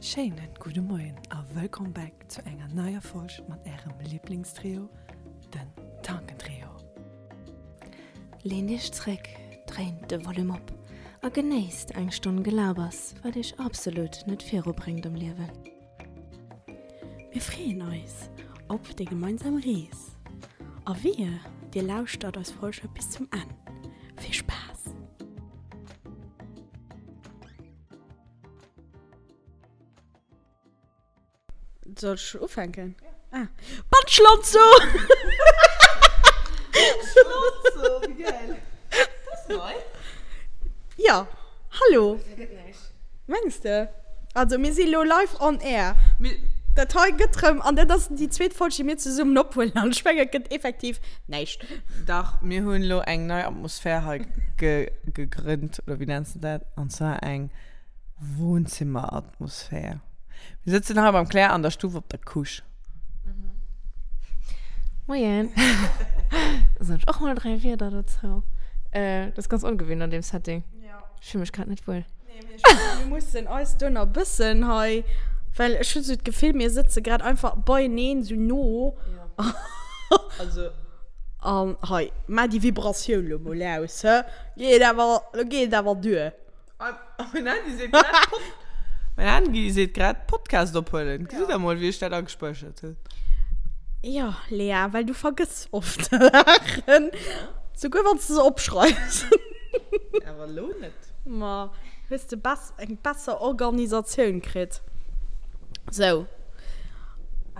Schéinen gudde Moien a wëllkomm back zu enger neier Folg mat ärem Liblingstrio, den Tankentrio. Leent iech zréck, dréint de Volume op a genéisst eng Stonn Gelabers, wat iech absolut net virubréngt am Liewen. Mir freeën eis op déi gemeinsam Rees a wehe dir lauschtert eis Folge bis zum Enn. Vill Spaass! Soll ech ufänken? Ah. Bandschlonzo! Schlonzo, wéi geil! Dat ass nei. Ja, hallo. Mengs de? Also mir si lo live on air. Dat hei gëtt rëm, an dat ass déi zweet Folg, déi mir zesummen ophuelen, an ech mengen, et gëtt effektiv näischt. Dach, mir hunn elo eng nei Atmosphär hei gegrënnt, oder wéi nenns de dat? An zwar eng Wohnzimmeratmosphär. Mir sëtzen hei beim Claire an der Stuff op der Couche. Moien. Soen ech och mol 3 Wierder dozou. Dat ass ganz ongewinnt an deem Setting. Ech fill mech grad net wuel. Nee, mee ech mengen, mir mussen eis do nach e bëssen hei, well ech hunn esou d'Gefill, mir sëtze grad einfach beieneen esou no. Ja. Also. An hei, maach déi Vibratioun lo mol aus, hë? Geet awer, lo geet et awer duer. Mein Handy seet grad Pod, mein Handy seet grad Podcast ophuelen. Gesitt der mol, wéi ech dat agespäichert hunn. Jo, Lea, well du vergëss oft Saachen, souguer wann s de se opschreifs. Awer elo net. Ma hues de bess eng besser Organisatioun kritt. Sou.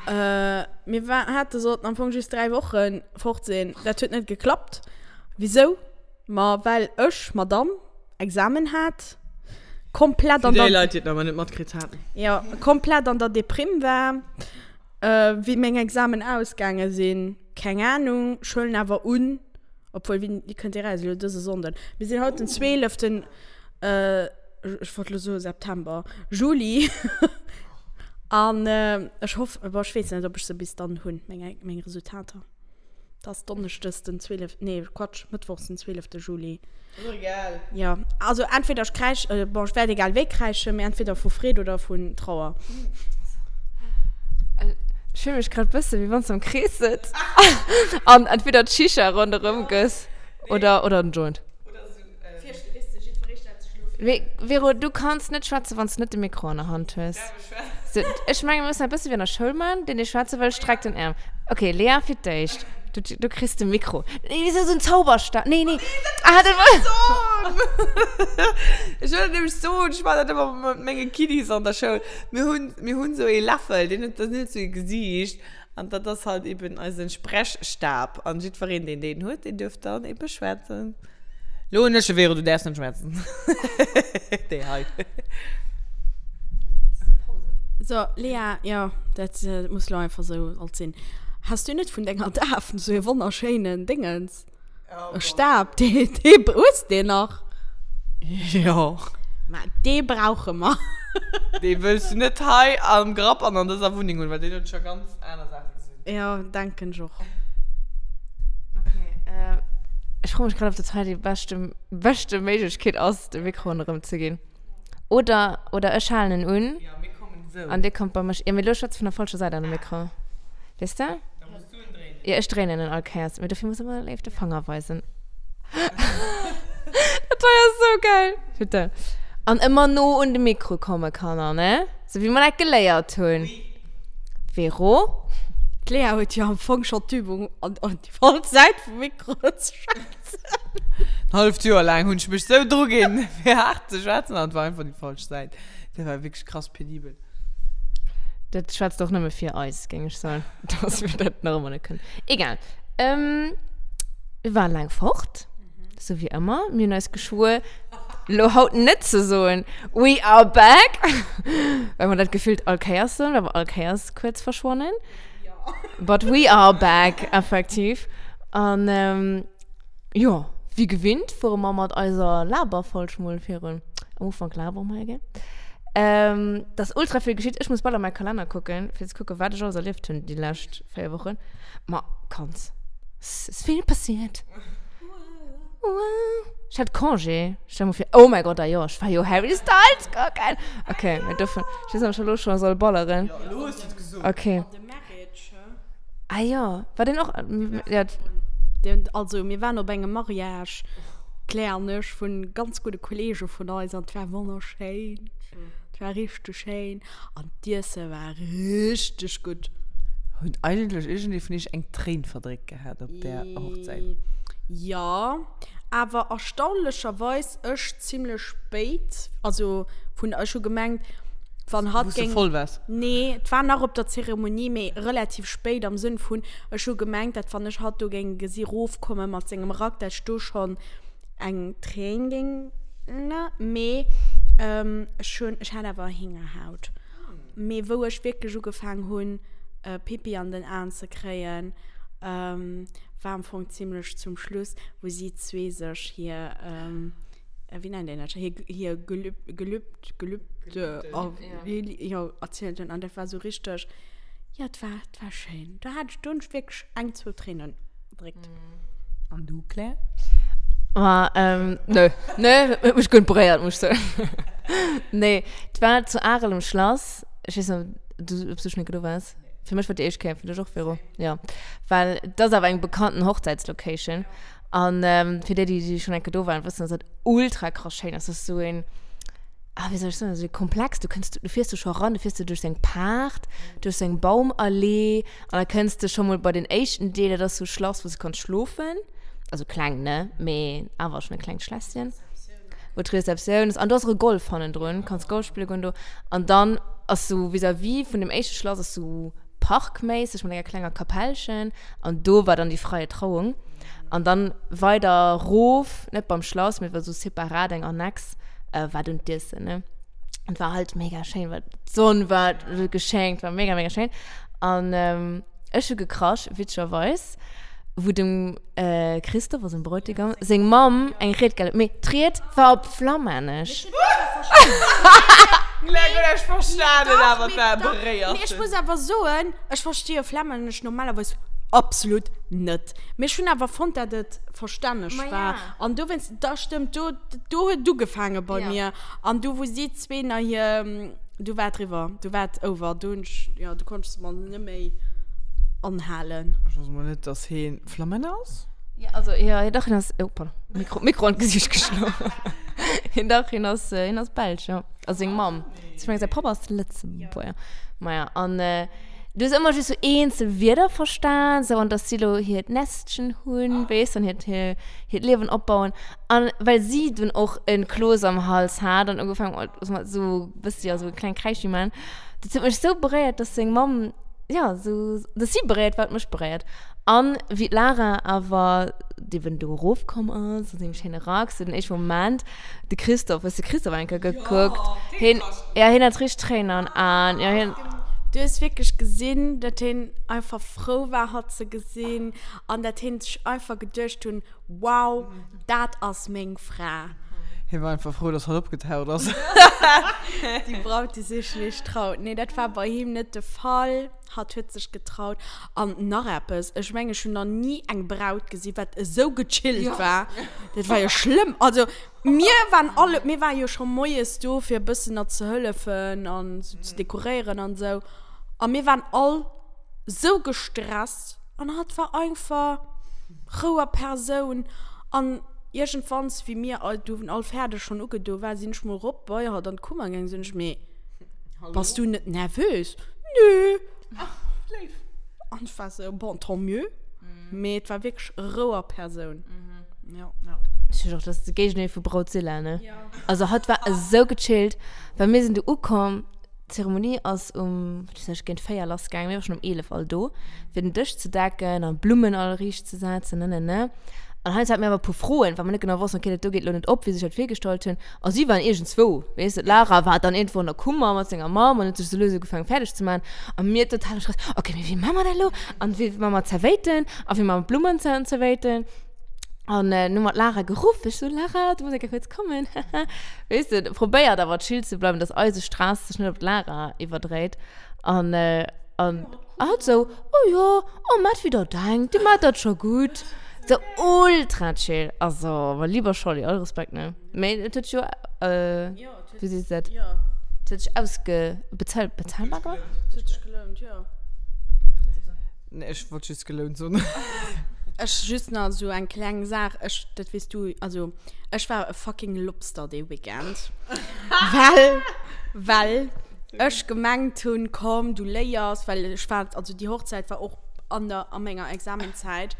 Mir war hate sollten am Fong just 3 Wochen fort sinn. Dat huet net geklappt. Wisou? Ma well ech, Madame, Examen hat, komplett an der. Fir déi Leit, déi et nach emol net matkritt haten. Jo, komplett an der Deprimm war. Wéi meng Examen ausgaange sinn, keng Ahnung. Ech huelen awer un, obwuel, wéini kënnt dee raus? Elo dëse Sonnden. Mir sinn haut den 12. Ech wollt elo soe September, Juli. An ech hoff, bon, ech weess net, ob ech se bis dann hunn, meng, meng Resultater. Et ass Donneschdes den 12., nee, Quatsch, Mëttwochs den 12. Juli. Ass och egal. Jo, also entweder ech kräisch, bon, ech wäert egal wéi kräischen, mee entweder vu Freed oder vun Trauer. Ech fill mech grad bësse wéi wann s de am Krees sëtz an entweder d'Shisha ronderëm gëss oder, oder en Joint. Mee Vero, du kanns net schwätzen, wann s de net de Mikro an der Hand hues. So, ech menge mir mussen dat bësse wéi an der Schoul man, deen dee schwätze wëll, streckt den Äerm. Okay, Lea fir d'éischt. Du, du kriss de Mikro. Nee, wéi sou en Zauberstab. Nee, nee. Ah, dat war. Ech wëll dat nämlech soen, ech maachen dat ëmmer mat menge Kiddies an der Schoul. Mir hunn, mir hunn esou ee Läffel, deen huet, dat huet esou ee Gesiicht an dat ass halt eben eisen Sprechstab. An jiddwereen, deen deen huet, deen duerf dann ebe schwätzen. Lo hunn ech e Vero, du däerfs net schwätzen. Déi hei. So, Lea, jo, dat muss lo einfach sou alt sinn. Has du net vun denger Daf sou e wonnerschéinen Déngens? E Stab, dee, dee, hues de deen nach? Jo. Ma dee brauche mer. Dee wëlls du net hei am Grapp an an dëser Wunneng hunn, well deen huet scho ganz aner Saache gesinn. Jo, denken ech och. Okay, äh, ech froe mech grad, ob dat hei déi beschte, beschte Méiglechkeet ass, de Mikro erëm ze ginn. Oder, oder ech halen en un. Ja, mir kommen esou. An dir kommt bei mech. Ja, mee lo schwätz vun der falscher Säit an de Mikro. Weess de? Da muss du en dréinen. Ja, ech dréinen en all Kéiers. Mee dofir muss ëmmer léif de Fanger weisen. Dat hei ass sou geil. Bitte. An ëmmer no un de Mikro komme, Kanner, ne? Sou wéi mer dat geléiert hunn. Oui. Vero? D'Lea huet jo am Fong schonn d'Übung, an déi falsch Säit vum Mikro ze schwätzen. En halleft Joer laang hunn ech mech sou dru ginn, fir haart ze schwätzen, an et war einfach déi falsch Säit. Dat war wierklech krass penibel. Dat schwätzt och nëmme fir eis, géing ech soen, dass mir dat nach ëmmer net kënnen. Egal. Ähm, mir waren laang fort, sou wéi ëmmer. Mir hunn eis geschwuer, lo haut net ze soen, We are back! Well mer dat gefillt all Kéiers soen, well mer all Kéiers kuerz verschwannen. But we are back, effektiv. An, ähm, Jo, wéi gewinnt fuere mer mat eiser Laberfolg mol virun. Am Ufank labere mer jo gär. Ähm, et ass ultra vill geschitt. Ech muss bal a mäi Kalenner kucken, fir ze kucken, wat ech alles erlieft hunn déi lescht 4 Wochen. Ma kanns, 's ass vill passiert. Wow. Ech hat Congé. Stell mol vir, oh mäi Gott, ah jo, ech war jo Harry Styles kucken. Okay, mä dovun, ech weess net, ob ech elo scho soll balleren. Jo, elo hues du et gesot. Okay. The Marriage, hä? Ah jo, war deen och, ja. Den, also mir waren op engem Mariage, d'Claire an ech, vun ganz gudde Kollege vun eis an 't war wonnerschéin. 't war richteg schéin an d'Iesse war richteg gutt. Huet eigentlech iergendee vun iech eng Tréin verdréckt gehat op där Hochzäit? Jo, awer erstaunlecherweis ech zimlech spéit. Also vun, ech hu gemengt, wann hatt Wou s de géing. voll waars? Nee, et war nach op der Zeremonie, mee relativ spéit am Sënn vun, ech hu gemengt, dat wann ech hatt do géing gesi rofkomme mat sengem Rack, dat ech do schonn eng Tréin géing, ne, mee ech hunn, ech hat awer Héngerhaut. Mee wou ech wierklech ugefaang hunn, Pipi an den Aen ze kréien, war am Fong zimlech zum Schluss, wou si zwee sech hir, wéi nennt een dat scho, hir, hir Gelüb, Gelübd, Gelübde, jo, erzielt hunn. An dat war sou richteg, jo, et war, et war schéin. Do hat ech, do hunn ech wierklech eng, zwou Tréinen verdréckt. An du, Claire? Ma, ähm, nö. Nö, huet mech guer net beréiert, muss ech soen. Nee, et war zu Arel um Schlass. Ech weess net, ob du, ob du schon eng Kéier do waars. Fir mech war déi éischt Kéier, fir dech och, Véro? Jo. Well et ass awer eng bekannten Hochzäitslocation. An fir déi, déi schonn eng Kéier do waren, wëssen, dass dat ultra krass schéin ass. Dat ass esou een, ah, wéi soll ech soen, esou ee Komplex. Du kënns, du fiers do scho eran, du fiers du duerch sou eng Paart, duerch sou eng Baumallee an da kënns de scho mol bei den éischten Deel, dat ass sou e Schlass, wou s du kanns schlofen. Also kleng, ne, mee awer schonn e klengt Schlässchen. Wou d'Rezeptioun ass. An do ass och e Golf hannendrun, kanns Golf spille goen do. An dann ass sou vis-à-vis vun dem éischte Schlass ass sou parkméisseg mat enger klenger Kapellchen. An do war dann déi freie Trauung. An dann weider rof, net beim Schlass, mee war sou separat eng Annex, war dunn d'Iessen, ne. An war halt mega schéin, well d'Sonn war geschenkt, war mega, mega schéin. An ech hu gekrasch, witzegerweis, wou dem Christophe, also dem Bräutigam, seng Mamm eng Ried gehal huet. Mee d'Ried war op Flammännesch. Ech verstanen awer, et war beréiert. Mee ech muss awer soen, ech verstehe Flammännesch normalerweis absolut net. Mee ech hunn awer fonnt, dat et verstänneg war. An dowéinst, da stëmmt, do, do huet et ugefaange bei mir. An du, wou si zwee nach hir, du war et riwwer, du war et over. Du hunn ech, jo, du konnt ech se mer net méi anhalen. Ech wosst mol net, dass hee Flamänner ass. Ja, also, ja, dach, hien ass, oh, pardon, Mikro, Mikro an d'Gesicht geschloen. Hien, dach, hien ass, hien ass Belsch, jo. Also seng Mamm. Ech mengen, säi Papp ass Lëtzebuerger. Maja, an du hues ëmmer just sou eenzel Wierder verstan, sou, an dass si lo hiert Nestchen hunn, weess, an hiert, hiert Liewen opbauen. An well si dunn och e Kloos am Hals hat an ugefaangen huet, sou, wësst jo, sou e kleng Kräischi man, dat huet mech sou beréiert, dass seng Mamm, ja, sou, dass si beréiert war, huet mech beréiert. An wéi d'Lara awer eben do erofkomm ass, an sengem schéine Rack, sou den éischte Moment, de Christophe, hues de Christophe eng Kéier gekuckt? Hien, ja, hien hat richteg Tréinen an Aen, ja, hien. Du hues wierklech gesinn, dat hien einfach frou war, hatt ze gesinn, an dat hien sech einfach geduecht hunn, Wow, dat ass meng Fra. Hie war einfach frou, dass hatt opgetaucht ass. Déi Braut, déi sech nicht traut. Nee, dat war bei him net de Fall. Hatt huet sech getraut. An nach eppes, ech mengen, ech hunn nach ni eng Braut gesi wat esou gechillt war. Dat war jo schlëmm. Also mir waren alle, mir ware jo scho moies do fir e bëssen nach ze hëllefen an sou ze dekoréieren an esou. A mir waren all esou gestresst an hatt war einfach Rou a Persoun. An iergendwanns, wéi mir all, du all fäerdeg schonn ugedo war, sinn ech mol rop bei hatt an d'Kummer gaangen, sinn ech, mee Bass du net nervös? Nö. Ach, léif. An ech war sou, bon, tant mieux. Mee et war wierklech Rou a Persoun. Ja. Ech hunn och, dat ass de Géigendeel vu Brautzilla, ne? Also hatt war esou gechillt, well mir sinn do ukomm, d'Zeremonie ass um, wat weess ech, géint 4 lass gaangen, mir ware schonn um 11 all do, fir den Dësch ze decken an d'Blummen all riicht ze setzen, ne, ne, ne. An heiansdo hate mir awer e puer Froen, well mer net genau wossten, okay, dat do geet elo net op, wéi se sech dat virgestallt hunn. A si waren iergendzwou, weess de, d'Lara war dann iergendwou an der Kummer mat senger Mamm an huet sech sou lues ugefaangen fäerdeg ze maachen. A mir total am Stress, okay, mee wéi maache mer dat elo? An wéi maache mer d'Zerwéiten? A wéi maache mer d'Blummen an d'Zerwéiten? An dann hu mer d'Lara geruff, ech sou, Lara, du muss eng Kéier kuerz kommen, haha. Weess de, probéiert awer chill ze bleiwen, dass eise Stress sech net op d'Lara iwwerdréit. An, an hatt sou, oh jo, oh, maacht wéi der denkt, dir maacht dat scho gutt. So ultra chill. Also, mein lieber Scholli, all Respekt, ne? Mee et huet jo, äh, wéi sees de dat? Jo. Et huet sech ausge, bezuel, bezahlbar gemaach? Et huet sech gelount, jo. Nee, ech wollt just gelount soen. Ech just nach esou eng kleng Saach, ech, dat weess du, also ech war e fucking Lobster dee Weekend. Well, well ech gemengt hunn, komm, du léiers, well ech war, also déi Hochzäit war och an der, a menger Examenzäit.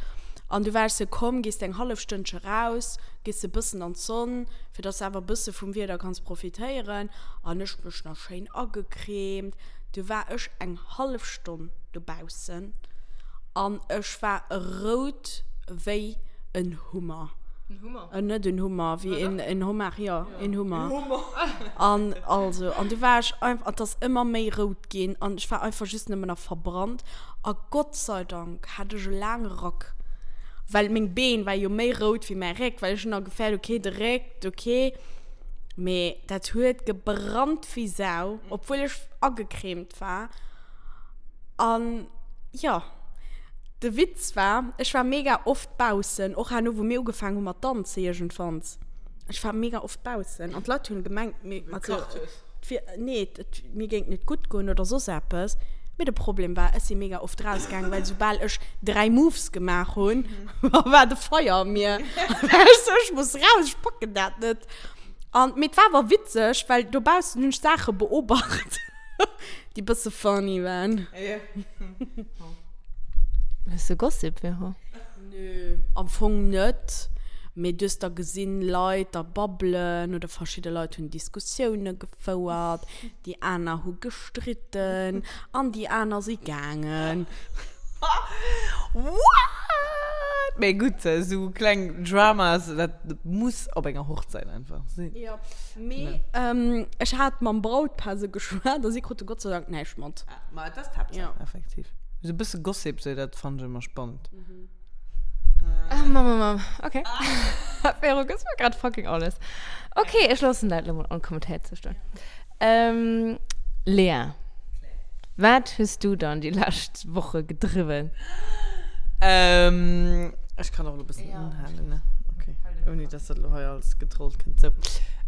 An du war ech sou, komm, gees de eng hallef Stënnche raus, gees de bëssen an d'Sonn, fir dass de awer e bësse vum Wieder kanns profitéieren. An ech mech nach schéin agecremt. Du war ech eng hallef Stonn dobaussen an ech war rout wéi en Hummer. En Hummer? Äh, net en Hummer, wéi en, en Homard, jo, en Hummer. En Hummer. An also, an du war ech einfach, an 't ass ëmmer méi rout ginn an ech war einfach just nëmmen nach verbrannt. A Gott sei Dank hat ech e laange Rack, well meng Been war jo méi rout wéi mäi Réck, well ech hunn nach gefäert, okay, de Réck, okay. Mee dat huet gebrannt wéi Sau, obwuel ech agecremt war. An jo, de Witz war, ech war mega oft baussen, och herno wou mir ugefaangen hu mat danzen iergendwanns. Ech war mega oft baussen an d'Leit hunn gemengt, mir, also, et wier, nee, et, mir géing et net gutt goen oder soss eppes. Mee de Problem war, ech si mega oft rausgaangen, well soubal ech 3 Moves gemaach hunn, war de Feier a mir. War ech sou, ech muss raus, ech packen dat net. An, mee et war awer witzeg, well dobaussen hunn ech Saache beobacht. Déi bësse funny waren. Ja. Hues de Gossip, Vero? Nö, am Fong net. Mee du hues da gesinn, Leit da babbelen oder verschidde Leit hunn Diskussioune gefouert, déi aner hu gestritten an déi aner si gaangen. What? Mee gutt, esou kleng Dramas, dat muss op enger Hochzäit einfach sinn. Jo. Mee ech hat mam Brautpaar sou geschwat a si krute Gott sei Dank näischt mat. Ah, ma et ass d'Haaptsaach, effektiv. Esou e bësse Gossip, sou, dat fannen ech ëmmer spannend. Ah, Mamm, Mamm, Mamm. Okay. Vero, gëss mer grad fucking alles. Okay, ech loossen dat elo mol onkommentéiert sou stoen. Ähm, Lea, wat hues du dann déi lescht Woche gedriwwen? Ähm, ech kann och elo e bëssen unhalen, ne? Okay. Ouni dass dat elo hei alles gedrollt kënnt. Sou.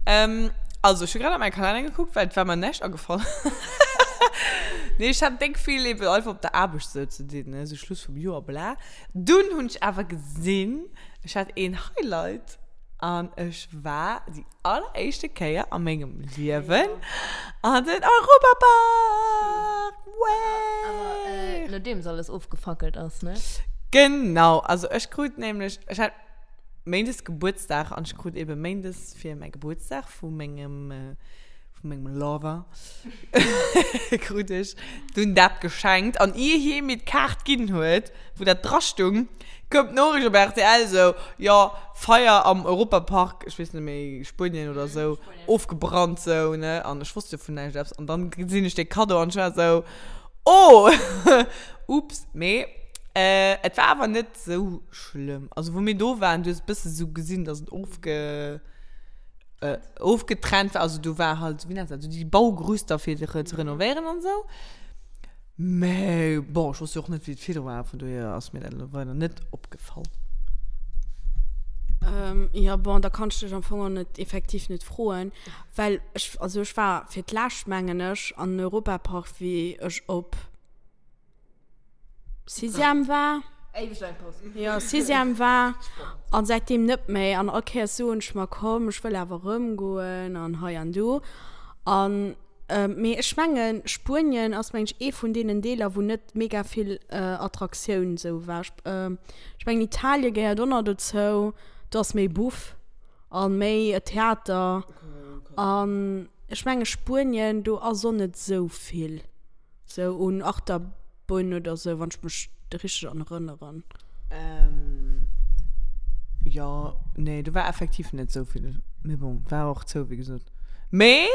Ähm, also, ech hu grad a mäi Kalenner gekuckt, well et war mer näischt agefall. Nee, ech hat déck vill eben einfach op der Aarbecht sou ze dinn, ne? Sou Schluss vum Joer, bla. Dunn hunn ech awer gesinn, ech hat een Highlight an ech war déi alleréischte Kéier a mengem Liewen an den Europapark! Way! Awer nodeems alles ofgefackelt ass, ne? Genau, also ech krut nämlech, ech hat méindes Gebuertsdag an ech krut ebe méindes fir mäi Gebuertsdag vu mengem, vu mengem Lover krut ech dunn dat geschenkt an ier hie mir d'Kaart ginn huet, wou dat dra stung, koum d'Noriicht op rtl sou, jo, Feier am Europapark, ech weess net méi, Spuenien oder sou, ofgebrannt sou, ne, an ech wosst jo vun näischt eppes an dann gesinn ech dee Cadeau an ech war sou, oh, ups, mee et war awer net sou schlëmm, also wou mir do waren, du hues e bësse sou gesinn, dass et ofge. ofgetrennt war, also do war halt, wéi nennt dat, sou déi Baugerüster fir ze renovéieren an esou. Mä bon, ech wosst jo och net, wéi et virdru war, vun dohier ass mir dat elo weider net opgefall. Jo, bon, da kann ech dech am Fong och net, effektiv net froen, well ech, also ech war fir d'lescht, mengen ech, an den Europapark, wéi ech op. Sixième war. Éiweg laang Paus. Jo, Sixième war. An säitdeem net méi. An all Kéiers soen ech mer, komm, ech wëll awer erëm goen an hei an do. An, mee ech mengen, Spuenien ass, meng ech, ee vun deenen Deeler, wou net mega vill Attraktioun esou war. Ech mengen, Italien gehéiert och nach dozou. Do ass méi Buff a méi Theater. An ech menge Spuenien, do ass och net esou vill. Sou un Achterbunn oder sou, wann ech mech richteg an erënneren. Ähm, jo, nee, do war effektiv net sou vill. Mee bon, war och zou, wéi gesot. Mee,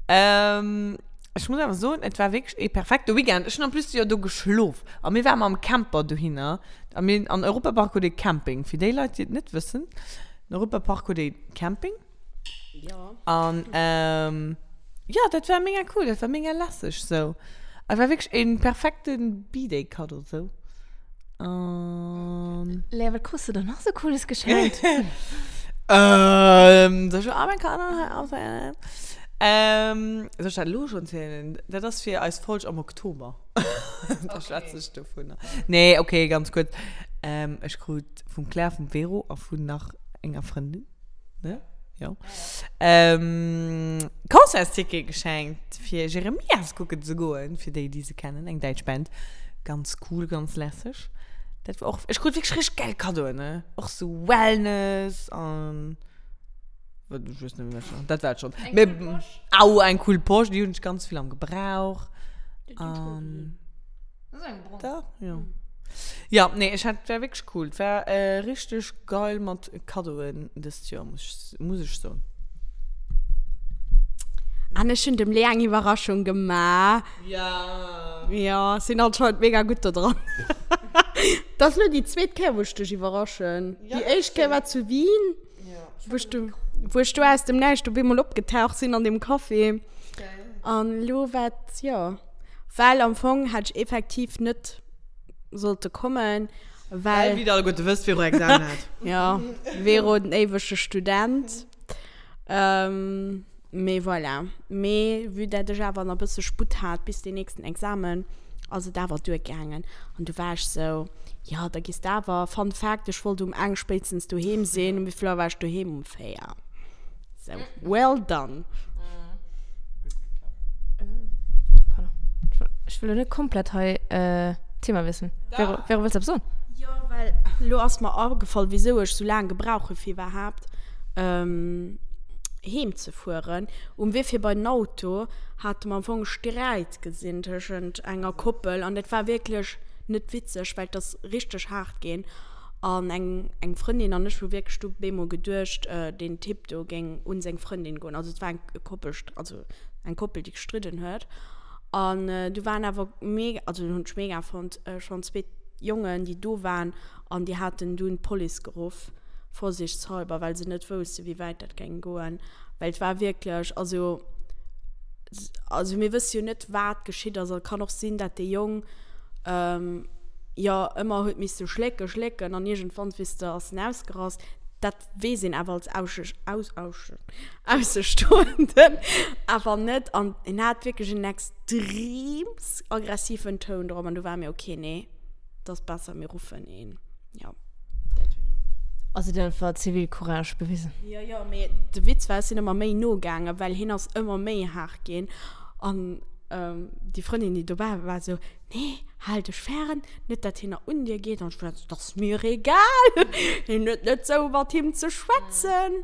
ähm, ech muss awer soen, et war wierklech ee perfekte Weekend. Ech hunn en plus jo do geschlof. A mir ware mam Camper dohinner. A mir, an Europapark huet ee Camping. Fir déi Leit, déi et net wëssen, den Europapark huet ee Camping. Ja. An ähm, ja, dat war mega cool, dat war mega lässeg sou. Et war wierklech een perfekten B-Day-Cadeau sou. An. Lea, wat krus du dann nach sou cooles geschenkt? Ähm, soll ech all meng Kaddoen hei opzéilen? Ähm, soll ech dat elo schonn zielen? Dat ass fir eis Folg am Oktober. Da schwätze ech dovunner. Nee, okay, ganz kuerz. Ähm, ech krut vum Claire, vum Vero a vun nach enger Frëndin, ne? Jo. Ähm, Concertsticket geschenkt fir Jeremias kucken ze goen, fir déi, déi se kennen, eng däitsch Band. Ganz cool, ganz lässeg. Dat war och, ech krut wierklech richteg gäil Kaddoen, ne? Och sou Wellness an, wat, ech weess net méi, wat ech nach, dat war et schonn. Eng Mee, cool Posch. au, eng cool Posch, déi hunn ech ganz vill am Gebrauch. An. Das ist eng brong. Da, jo. Ja, nee, ech hat, war wierklech cool. Et war richteg geil mat Kaddoen dëst Joer, muss ech, muss ech soen. An ech hunn dem Lea eng Iwwerraschung gemaach. Ja. Ja, ech sinn anscheinend mega gutt do dran. Dat ass elo déi zweet Kéier, wou ech dech iwwerraschen. Déi éischt Kéier war zu Wien, wou ech du, wou ech do aus dem Näischt op eemol opgetaucht sinn an deem Café. An elo war et, jo. Well am Fong hätt ech effektiv net sollte kommen, well. Well, wéi der alleguerte wësst, Vero Examen hat. Jo, Vero den éiwege Student. Mee voilà. Mee vue dat ech awer nach e bësse Sputt hat bis deen nächsten Examen, ass et awer duergaangen. An du war ech sou, jo, da gees de awer. Fun Fact, ech wollt um eng spéitstens doheem sinn. Um wéi vill Auer war ech doheem? Um 4. So, well done. Pardon. Ech wëll lo net komplett hei Thema wiesselen. Vero, Vero, wëlls du eppes soen? Jo, well lo ass mer agefall, wisou ech sou laang gebrauch hu fir iwwerhaapt heem ze fueren. Um Wee fir bei den Auto hate mer am Fong e Sträit gesinn tëschent enger Koppel an dat war wierklech net witzeg, well et ass richteg haart ginn. An eng eng Frëndin an ech hu wierklech du bemol geduecht, deen Typ do géing un seng Frëndin goen. Also et war eng Koppel, also eng Koppel, déi gestridden huet. An du waren awer mega, also hunn ech mega fonnt, schonn zweet Jongen, déi do waren an déi haten dunn d'Police geruff, vorsichtshalber, well se net wousste wéi wäit dat géing goen. Well et war wierklech, also also mir wësse jo net wat geschitt ass. Et kann och sinn, dat dee Jong jo ëmmer huet misse schlécken, schlécken an iergendwann, weess de, ass en ausgerast. Dat weess een awer als Aussestoenden awer net. An en hat wierklech en extreems aggressiven Toun drop an du war mir, okay, nee, et ass besser mir ruffen een. Jo, dat war. Also dir hutt einfach Zivilcourage bewisen. Jo, jo, mee de Witz war, ech sinn ëmmer méi no gaangen, well hien ass ëmmer méi haart ginn. An déi Frëndin, déi dobäi war, war esou, Nee, hal dech fern, net dat hien nach un dir geet. An ech war esou, 't ass mir egal, hien huet net sou mat him ze schwätzen.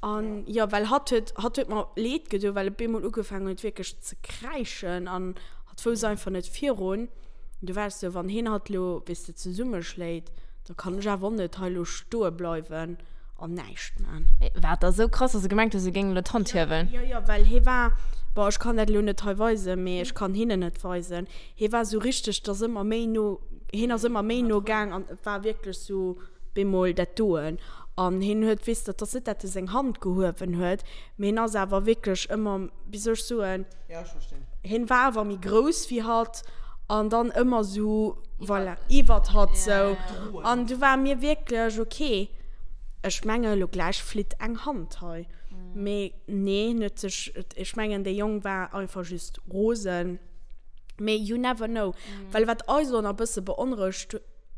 An jo, well hatt huet, hatt huet mer leed gedoen, well e bemol ugefaangen huet wierklech ze kräischen an hatt wousst einfach net virun. An du war ech sou, wann hien hatt lo, weess de, zesummeschléit, da kann ech awer och net hei lo stoe bleiwen an näischt man. War et da sou krass, dass e gemengt huet, se géingen elo d'Hand hiewen? Jo, jo, well hie war, bon, ech kann dat elo net hei weisen, mee ech kann hinnen et weisen, hie war sou richteg, et ass ëmmer méi no, hien ass ëmmer méi no gaang an et war wierklech sou bemol dat doen. An hien huet, weess de, et ass net, dat e seng Hand gehuewen huet, mee hien ass awer wierklech ëmmer, wéi soll ech soen, Ja, ech verstinn. Hien war awer méi grouss wéi hatt an dann ëmmer sou, voilà, iwwert hatt sou. An du war mir wierklech, ok, ech menge lo gläich flitt eng Hand hei. Mee nee, hien huet sech, ech mengen dee Jong war einfach just rosen. Mee you never know. Well wat eis och nach e bësse beonrouegt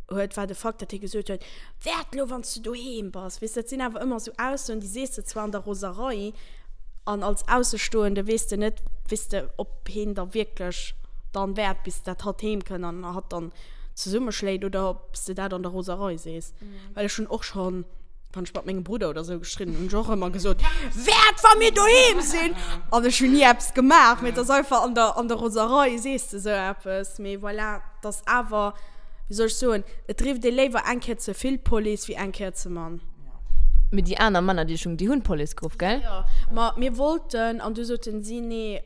huet, war de Fakt, datt hie gesot huet, Wäert elo, wann s du doheem bass. Weess, dat sinn awer ëmmer esou Aussoen, déi sees de zwar an der Roserei an als Aussestoende weess de net, weess de, ob hien da wierklech dann wäert, bis dat hatt heem kënn an hatt dann zesummeschléit oder ob s de dat an der Roserei sees. Well ech hunn och schonn, wann ech mat mengem Brudder oder sou gestridden hunn, hunn ech och ëmmer gesot, Wäert, wa mir doheem sinn! An ech hunn ni eppes gemaach, mee et ass einfach an der, an der Roserei sees de sou eppes. Mee voilà, et ass awer, wéi soll ech soen, et rifft ee léiwer eng Kéier ze vill d'Police wéi eng Kéier ze mann. Mee déi aner Männer, déi ech hunn, déi hunn d'Police geruff, gell? Jo, ma mir wollten, an du soten si, nee,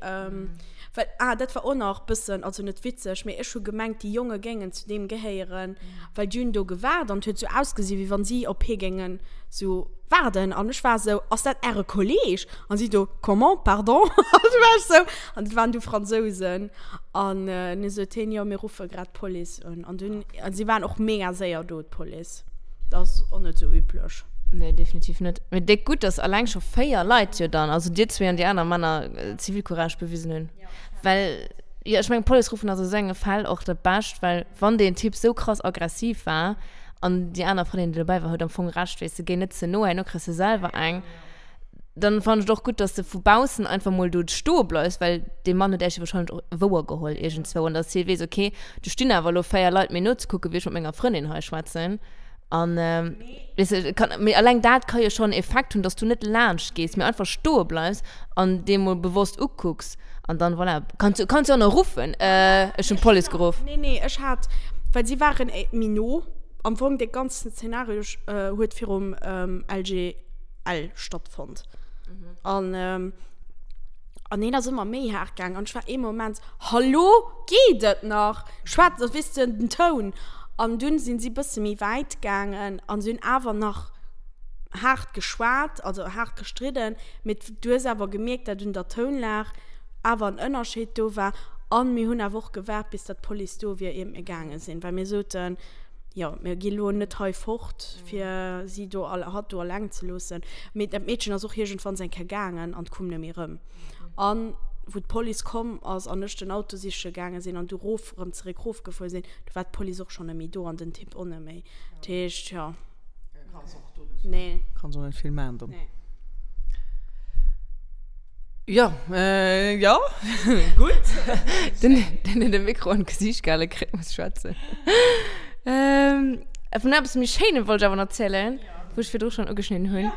well, ah, dat war och nach bëssen, also net witzeg, mee ech hu gemengt, déi Jonge géingen zu deem gehéieren, well déi hunn do gewaart an et huet sou ausgesi wéi wann si op hie géingen sou. Waarden an ech war esou, ass dat äre Kolleg? An si do, comment, pardon? An du war ech esou, an dat waren du Fransousen. An du sot hien, jo mir ruffe grad d'Police un. An dunn, an si waren och mega séier do, d'Police. Dat ass och net esou üblech. Nee, definitiv net. Mee déck gutt, dass alleng scho 4 Leit jo dann, also dir zwee an déi aner Männer, Zivilcourage bewisen hunn. Well, jo, ech mengen, d'Police ruffen ass a sou enge Fäll och dat Bescht, well wann deen Typ sou krass aggressiv war, An déi aner Frëndin, déi dobäi war, huet am Fong Recht, weess de, géi net ze no, herno kriss de selwer eng. Dann fannen ech et och gutt, dass de vu baussen einfach mol do stoe bleifs, well dee Mann huet äech jo wahrscheinlech och wouer geholl iergendzwou an dass hie weess, okay, do stinn awer elo 4 Leit mir nozekucken, wéi ech mat menger Frëndin hei schwätzen. An, weess de, kann, mee alleng dat ka jo schonn Effekt hunn, dass du net laanscht gees, mee einfach stoe bleifs an dee mol bewosst ukucks. An dann, voilà, kanns du, kanns du och nach ruffen, Ech hunn d'Police geruff. Nee, nee, ech hat, well si waren méi no. Am Fong, dee ganzen Zeenario huet virum LGL stattfonnt. An, an hien ass ëmmer méi haart gaang. An ech war ee Moment, Hallo, geet et nach? Schwätz, weess de, den Toun. An dunn sinn si bësse méi wäit gaangen an si hunn awer nach haart geschwat, also haart gestridden. Mee du hues awer gemierkt, dat un der Tounlag awer en Ënnerscheed do war. An mir hunn awer och gewaart, bis datt d'Police do wier, iert mir gaange sinn, well mir soten, jo, mir gi lo net hei fort, fir si do, hatt do alleng ze loossen. Mee dat Meedchen ass och iergendwanns eng Kéier gaangen an koum net méi erëm. An wou d'Police komm ass an ech den Auto siche gaange sinn an du rof, erëm zeréck rofgefuer sinn, du war d'Police och schonn net méi do an den Typ och net méi. Dat heescht, jo. Nee. Kanns och net vill maachen dann. Nee. Ja, äh, ja, gutt. Den, den huet e Mikro an d'Gesiicht gehale kritt, muss schwätzen. Ähm, vun eppes méi Schéinem wollt ech awer nach erzielen, wou ech virdru schonn ugeschnidden hunn.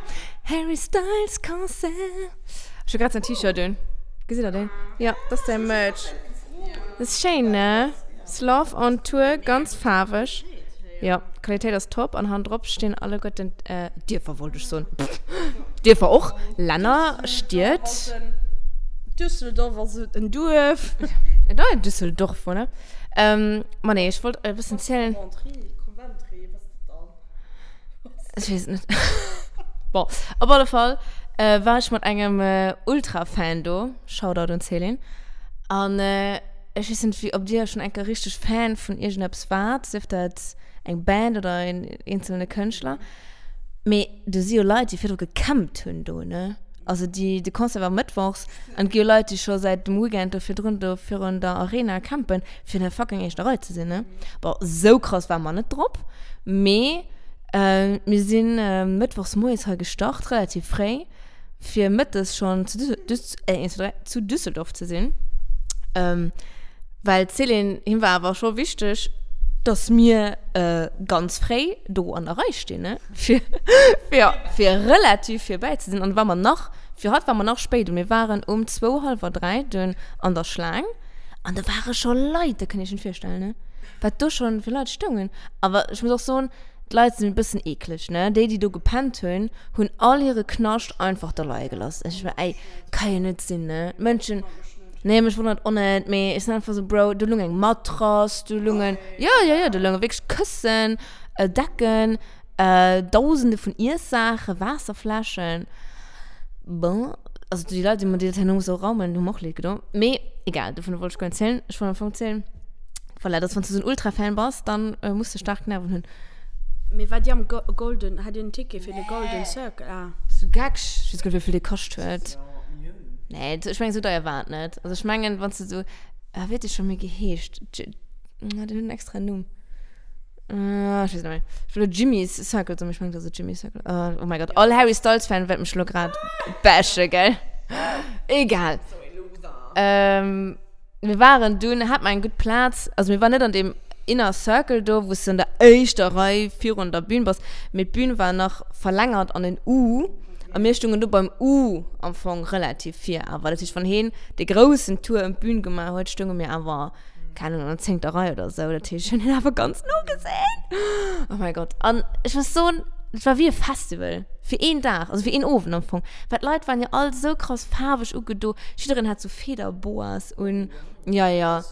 Harry Styles Concert. Ech hu grad säin T-Shirt un. Gesitt der deen? Ja, dat ass säi Merch. Dat ass schéin, ne? Love on Tour, ganz faarweg. Jo, d'Qualitéit ass top an hannendrop stinn alleguerten Dierfer, wollt ech soen, Dierfer och, Länner, Stied. Düsseldorf ass en Duerf. Et ass Düsseldorf, voilà. Ma nee, ech wollt e bëssen zielen. Coventry, Coventry, wat ass dat dann? Ech weess et net. Bon, op alle Fall war ech mat engem Ultra-Fan do, Shoutout un d'Céline, an Ech weess net wéi ob dir schon eng Kéier richteg Fan vun iergendeppes waart, sief dat eng Band oder een eenzelne Kënschtler, mee do si jo Leit déi virdru gecampt hunn do ne, also déi, de Concert war mëttwochs an et gi jo Leit déi scho säit dem Weekend do virdrun do virun der Arena campen fir an der fucking éischter Rei ze sinn ne. Bon sou krass ware mer net drop, mee mir sinn mëttwochs moies hei gestart, relativ fréi. fir mëttes schonn zu Düssel, Düss, äh, 1, 2, 3, zu Düsseldorf ze sinn. Ähm, well d'Céline, him war awer scho wichteg, dass mir äh, ganz fréi do an der Rei stinn, ne? Fir, fir, fir relativ virbäi ze sinn. An war mer nach, fir hatt war mer nach spéit. Und mir waren um zwou, hallwer dräi dunn an der Schlaang. An do ware scho Leit, dat kënnt Iech net virstellen, ne? Wat do schonn fir Leit stoungen. Awer ech muss och soen, D'Leit sinn e bëssen eekleg, ne? Déi, déi do gepennt hunn, hunn all hire Knascht einfach do leie gelooss. Ech war, ey, ka jo net sinn, ne? D'Mënschen, nee, mech wonnert och net, mee ech sinn einfach sou, Bro, do lung eng Matrass, do lungen, jo, jo, jo, do lounge wierklech Këssen, Decken, Dausende vun Iessaachen, Waasserfläschen. Bon, also déi Leit, déi dat herno musse raumen, hu mer och leed gedo. Mee egal, dovun wollt ech guer net zielen. Ech wollt am Fong zielen, Voilà, dass wann s du sou en Ultra-Fan bass, dann muss de staark Nerven hunn. Mee war dir am Golden, hat dir en Ticket fir de Golden Circle? Ah. Bist du geck? Ech weess guer net wéivill dee kascht huet. Nee, ech mengen sou deier war et net. Also ech mengen wann s du sou, ah wéi huet dee scho méi geheescht? Den huet en extra Numm. Ech weess net méi. Ech wëll elo Jimmy's Circle soen, mee ech mengen et ass net Jimmy's Circle. Oh my God, all Harry Styles Fan wäert mech elo grad bashen, gell? Egal. Mir waren dunn, hat mer eng gutt Plaz, also mir waren net an deem Inner Circle do, wou s du an der éischter Rei virun der Bühn bass, mee d'Bühn war nach verlängert an en U a mir stungen do beim U am Fong relativ vir awer. Dat heescht, wann heen dee groussen Tour ëm d'Bühn gemaach huet, stunge mir awer, keng Ahnung, an der zéngter Rei oder sou. Dat heescht, ech hunn hien awer ganz no gesinn. Oh mäi Gott. An ech muss soen, et war wéi e Festival fir een Dag, also fir een Owend am Fong, well d'Leit waren jo all sou krass faarweg ugedo, jiddereen hat sou Federboas un. Ja, ja.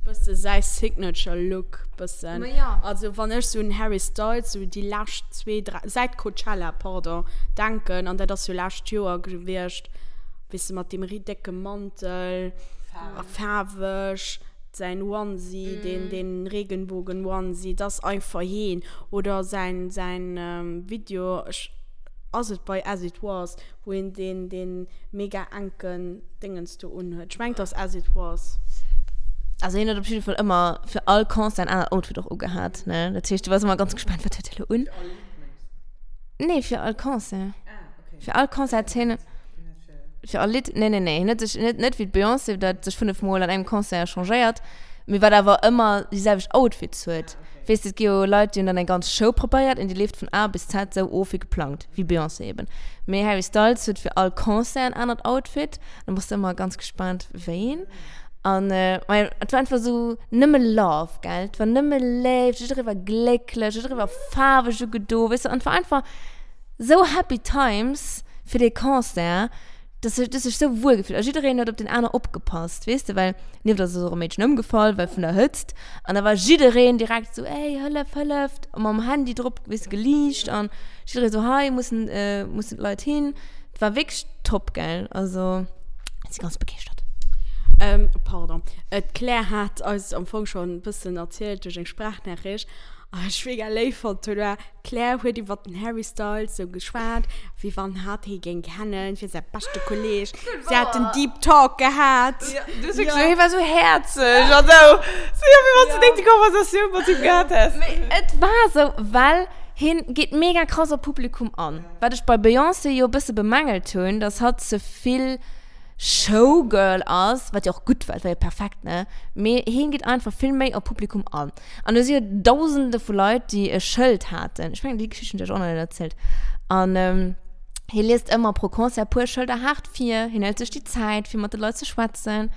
Bësse säi Signature Look bëssen. Ma ja. Also wann ech sou un Harry Styles sou déi lescht zwee, dräi, säit Coachella, pardon, denken, an dat ass jo lescht Joer gewiescht, weess de, mat deem ri décke Mantel, faarweg, säin Onesie, deen, deen Regenbogen-Onesie, dat ass einfach heen. Oder säin, säin Video, ech, ass et bei As It Was? Wou een deen, deen mega enken Déngens do unhuet. Ech mengen, 't ass As It Was. Also hien huet op jidde Fall ëmmer fir all Concert en anert Outfit och ugehat, ne? Dat heescht, du waars ëmmer ganz gespaant, wat huet hie lo un? Fir all Lidd, mengs du? Nee, fir all Concert. Ah, okay. Fir all Concert hat hien. Fir all Lidd? Nee, nee, nee. Hien huet sech net, net wéi d'Beyoncé, dat sech 5 Mol an engem Concert changéiert, mee wat awer ëmmer déi selwecht Outfits huet. Weess de, et gi jo Leit, déi hunn dann eng ganz Show preparéiert an déi leeft vun A bis Z sou of wéi geplangt, wéi Beyoncé eben. Mee Harry Styles huet fir all Concert en anert Outfit, da bass de ëmmer ganz gespaant wéi een. An majo, et war einfach sou nëmme Love, gell, et war nëmme Léift, jidderee war glécklech, jidderee war faarweg ugedo, weess de, an et war einfach sou happy times fir dee Concert. Dass ech, dass ech sou wuel gefillt. A jiddereen huet op deen aner opgepasst, weess de, well nieft eis ass och e Meedchen ëmgefall, well vun der Hëtzt. An da war jiddereen direkt sou, ey, hëllef, hëlleft, a mam Handy drop, weess de, geliicht an jidderee sou, hei mussen, mussen d'Leit hin. Et war wierklech top, gell, also ech si ganz begeeschtert. Pardon, d'Claire hat eis am Fong schonn e bëssen erzielt duerch eng Sprachnachricht, a ech mega léif fonnt hunn, war, D'Claire huet iwwer den Harry Styles sou geschwat, wéi wann hatt hie géing kennen, wier säi beschte Kolleeg. Si haten Deep Talk gehat. Ja, du hues wierklech, hie war sou häerzeg an sou, sou jo, wéi wann s du déi Konversatioun mat him gehat häss. Mee et war sou, well hien geet mega krass op d'Publikum an. Wat ech bei Beyoncé jo e bësse bemängelt hunn, dass hatt ze vill Showgirl ass, wat jo och gutt war, et war jo perfekt, ne, mee hien geet einfach vill méi op d'Publikum an. An do si jo Dausende vu Leit, déi e Schëld haten. Ech mengen, déi Geschicht hunn ech iech och nach net erzielt. An hie liest ëmmer pro Concert e puer Schëlder haart vir. Hien hëlt sech déi Zäit, fir mat de Leit ze schwätzen.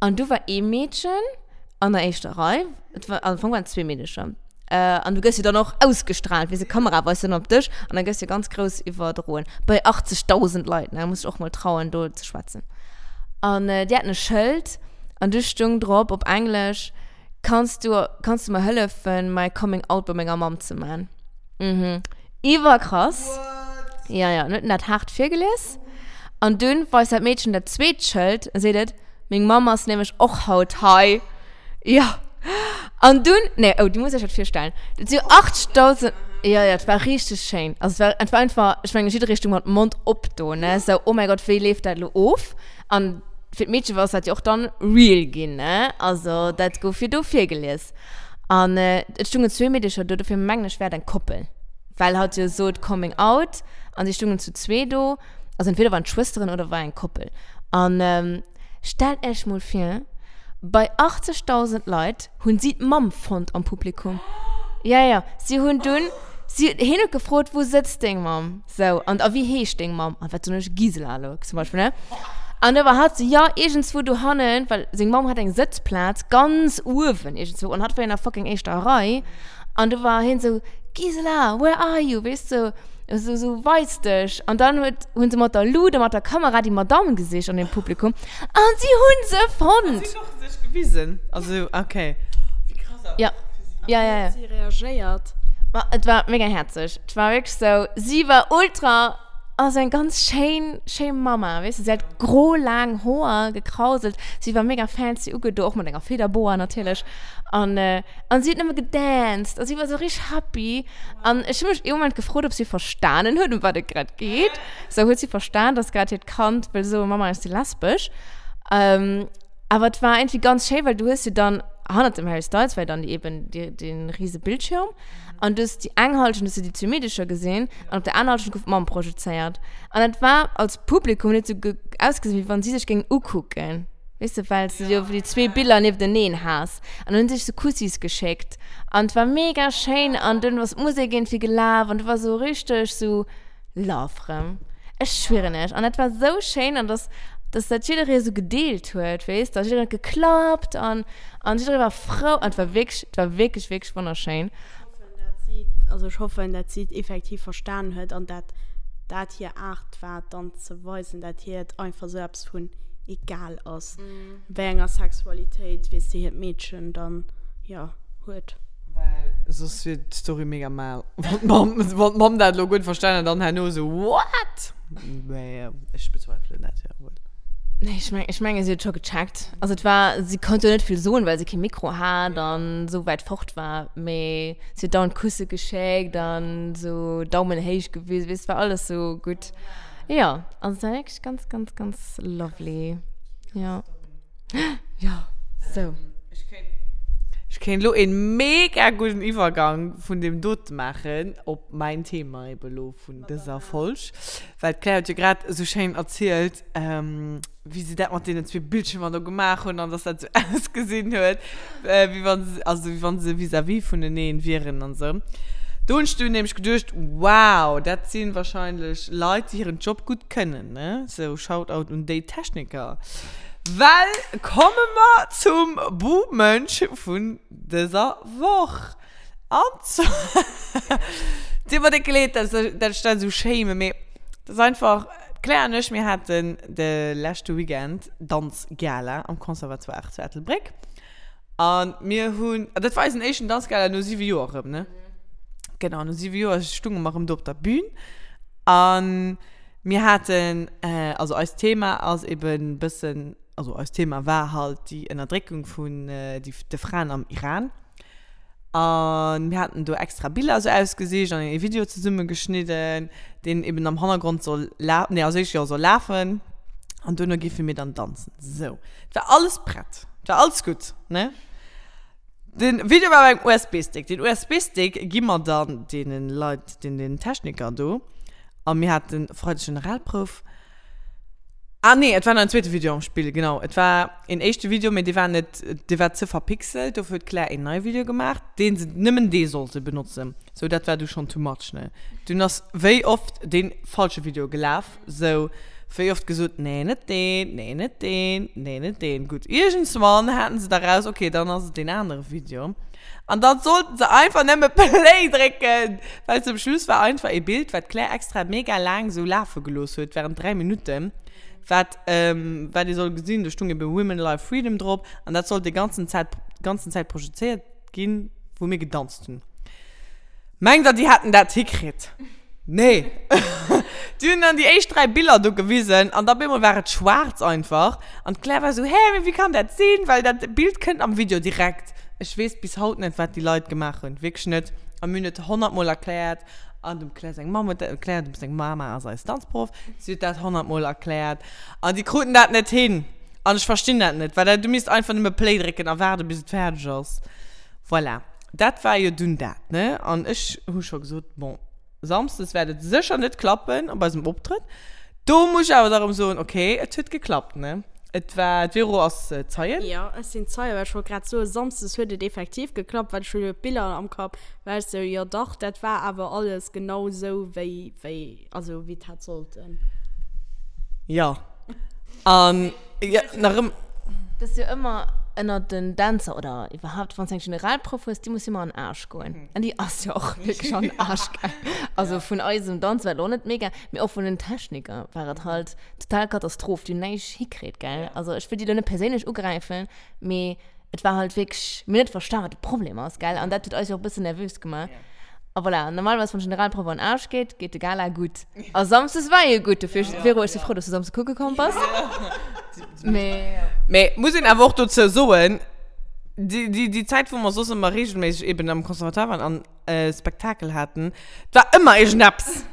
An du war ee Meedchen an der éischter Rei, et war, am Fong waren et zwee Meedecher. An du gëss jo dann och ausgestrahlt, weess de, d'Kamera weist dann op dech an da gëss jo ganz grouss iwwerdroen. Bei 80.000 Leit, ne, muss sech och mol trauen, do ze schwätzen. An déi haten e Schëld an du stung drop op Englesch, Kanns du, kanns du mer hëllefen, mäi Coming Out bei menger Mamm ze man? Mhm. Iwwerkrass. What? Ja, ja, en huet en dat haart virgelies. An dunn weist dat Meedchen dat zweet Schëld a seet et, Meng Mamm ass nämlech och haut hei. Ja. An dunn, nee, oh, du muss iech dat virstellen. Dat si jo 80.000, ja, ja, et war richteg schéin. Also et war, et war einfach, ech mengen, jidderee stoung mat Mond op do, ne, sou, oh mäi Gott, wéi leeft dat elo of? An fir d'Meedche war dat jo och dann real ginn, ne? Also dat gouf jo do virgelies. An et stungen zwee Meedecher do, dofir mengen ech, war et eng Koppel. Well hatt jo sot Coming Out an si stungen zu zwee do. Also entweder waren et Schwësteren oder war eng Koppel. An stellt Iech mol vir, bei 80.000 Leit hunn si d'Mamm fonnt am Publikum. Ja, ja, si hunn dunn, si, hien huet gefrot, wou sëtzt deng Mamm? Sou, an a wéi heescht deng Mamm? An wat soen ech? Gisela elo zum Beispill, ne? An da war hatt sou, ja, iergendswou dohannen, well seng Mamm hat eng Sëtzplaz ganz uewen iergendswou an hatt war jo an der fucking éischter Rei. An du war hien sou, Gisela, where are you? Weess de, sou, sou, weis dech. An dann huet, hunn se mat der Lut a mat der Kamera déi Madamm gesicht an dem Publikum an si hunn se fonnt! Si hunn och sech gewisen, also, okay. Wéi krass awer Ja. fir si. Ja, ja, ja. Wéi huet si reagéiert? Ma et war mega häerzeg. Et war wierklech sou, si war ultra, also eng ganz schéin, schéi Mama, weess de. Si hat gro laang Hoer, gekrauselt, si war mega fancy ugedo, och mat enger Federboa natierlech. An, an si huet nëmme gedanced a si war sou richteg happy. An ech hu mech ee Moment gefrot, ob si verstanen huet, ëm wat et grad geet. Sou, huet si verstan, dass grad hiert Kand wëll soen, Mama, ech si lesbesch? Awer et war iergendwéi ganz schéi, well du hues jo dann, hannert dem Harry Styles war jo dann eben dee, dee rise Bildschirm. An du hues déi eng Halschent hues du déi zwee Meedecher gesinn an op der aner Halschent gouf d'Mamm projezéiert. An dat war als Publikum huet et sou ausgesinn, wéi wann si sech géingen ukucken, weess de, well s de jo déi zwee Biller niefteneen has. An dann hunn si sech sou Kussis geschéckt an et war mega schéin an dunn ass d'Musek iergendwéi gelaf an du war sou richteg sou Love rëm. Ech schwieren iech. An dat war sou schéin an dass, dass dat jidderee sou gedeelt huet, weess de, jiddereen huet geklappt an An jidderee war frou an et war wierklech, et war wierklech, wierklech wonnerschéin. Ech hoffen, dat si, also ech hoffen, dat si et effektiv verstan huet an dat dat hir Aart war, dann ze weisen, dat hir et einfach esou eppes vun. egal ass, wéi enger Sexualitéit, weess de, hiert Meedchen dann, jo, huet. Well soss wier d'Story mega mal. Wann d'Mamm, wann d'Mamm dat elo guer net verstanen hätt an herno esou, What? Mä ech bezweifelen dat, jo, wuel. Nee, ech meng, ech mengen, si huet scho gecheckt. Also et war, si konnt jo net vill soen, well si kee Mikro hat an esou wäit fort war. Mee si huet dauernd Kusse geschéckt an esou Daumen héich gewisen, weess, et war alles esou gutt. Jo, also et war wierklech ganz, ganz, ganz lovely. Jo. Jo, sou. Ech kéint elo een mega gudden Iwwergang vun deem dote maachen op mäin Thema eben elo vun dëser Folg, well d'Claire huet jo grad esou schéin erzielt, wéi se dat mat deenen zwee Bildschiermer do gemaach hunn an dass dat esou ausgesinn huet, wéi wann se, also wéi wann se vis-à-vis vuneneen wieren an esou. Do hunn ech dunn nämlech geduecht, wow, dat si wahrscheinlech Leit, déi hiren Job gutt kënnen, ne? Sou, Shoutout un déi Techniker. Well komme mer zum Buhmënsch vun dëser Woch. An zwar, dir mer déck leed, dass ech dat ech dat esou schéime, mee et ass einfach, d'Claire an ech, mir haten de leschte Weekend Danzgala am Conservatoire zu Ettelbréck. An mir hunn, an dat war eisen éischten Danzgala no siwe Joer erëm, ne? Genau, no siwe Joer stunge mer erëm do op der Bühn. An mir haten, also eist Thema ass eben bëssen, also eist Thema war halt déi Ënnerdréckung vun de Fraen am Iran. An mir haten do extra Biller esou ausgesicht an ee Video zesumme geschnidden, deen eben am Hannergrond soll la-, nee, als éischt jo soll lafen an duerno géife mir dann danzen. Sou, et war alles prett, et war alles gutt, ne? Den Video war op engem USB-Stick. Den USB-Stick gi mer dann deenen Leit, den, den Techniker do. A mir haten Freideg Generalprouf. Ah nee, et war nach en zweete Video am Spill, genau. Et war een éischte Video, mee dee war net, dee war ze verpixelt. Dofir huet d'Claire een neie Video gemaach, deen se, nëmmen dee sollte benotzen. Sou, dat war du schonn too much, ne? Dunn ass wéi oft dee falsche Video gelaf, sou wéi oft gesot, nee, net deen, nee, net deen, nee, net deen. Gutt, iergendswann haten se da raus, okay, dann ass et deen anere Video. An dann sollten se einfach nëmme Play drécken, well zum Schluss war einfach ee Bild, wat d'Claire extra mega laang sou lafe gelooss huet, während 3 Minutten, wat, wat ee soll gesinn, do stung ebe Women, Life, Freedom drop an dat sollt déi ganzen Zäit, ganzen Zäit projezéiert ginn, wou mir gedanzt hunn. Mengt der, déi hätten dat hikritt? Nee. Déi hunn dann déi éischt 3 Biller do gewisen an da op eemol war et schwaarz einfach. An d'Claire war esou, Hä, mee wéi kann dat sinn? Well dat Bild kënnt am Video direkt. Ech weess bis haut net, wat déi Leit gemaach hunn. Wierklech net. A mir hunn et honnertmol erkläert. An dem Claire seng Mamm huet dat erkläert. Dem seng Mama ass eis Danzproff. Si huet dat honnertmol erkläert. An déi kruten dat net hin. An ech verstinn dat net, well du misst einfach nëmme Play drécken a waarde bis et fäerdeg ass. Voilà. Dat war jo dunn dat, ne? An ech hu scho gesot, bon, samsdes wäert et sécher net klappen op eisem Optrëtt. Do muss ech awer da erëm soen, okay, et huet geklappt, ne? Et war, d'Vero ass Zeien. Jo, ech sinn Zeien, well ech wollt grad soen, samsdes huet et effektiv geklappt, well ech hu jo d'Biller am Kapp, war ech sou, jo dach, dat war awer alles genau sou, wéi, wéi, also wéi et hätt sollten. Jo. An jo, nach ëm. Dat ass jo ëmmer ënnert den Dänzer oder iwwerhaapt, wann s de eng Generalprouf hues, déi muss jo ëmmer an den Aarsch goen. An déi ass jo och wierklech an den Aarsch gaang. Also vun eisem Danz war et och net mega, mee och vun den Techniker war et halt total Katastroph. Déi hunn näischt hikritt, gell. Also ech wëll déi elo net perséinlech ugräifen, mee et war halt wierklech, mir hunn net verstan, wat de Problem ass, gell? An dat huet eis jo och e bëssen nervös gemaach. A voilà, normalerweis, wann d'Generalprouf an den Aarsch geet, geet de Gala gutt. A samsdes war e gutt, dofir, Vero, ech si frou, dass du samsdes kucke komm bass. Mee. Mee muss een awer och dozou soen, déi, déi, déi Zäit, wou mer soss ëmmer reegelméisseg eben am Conservatoire waren an Spektakel haten, 't war ëmmer iergendeppes.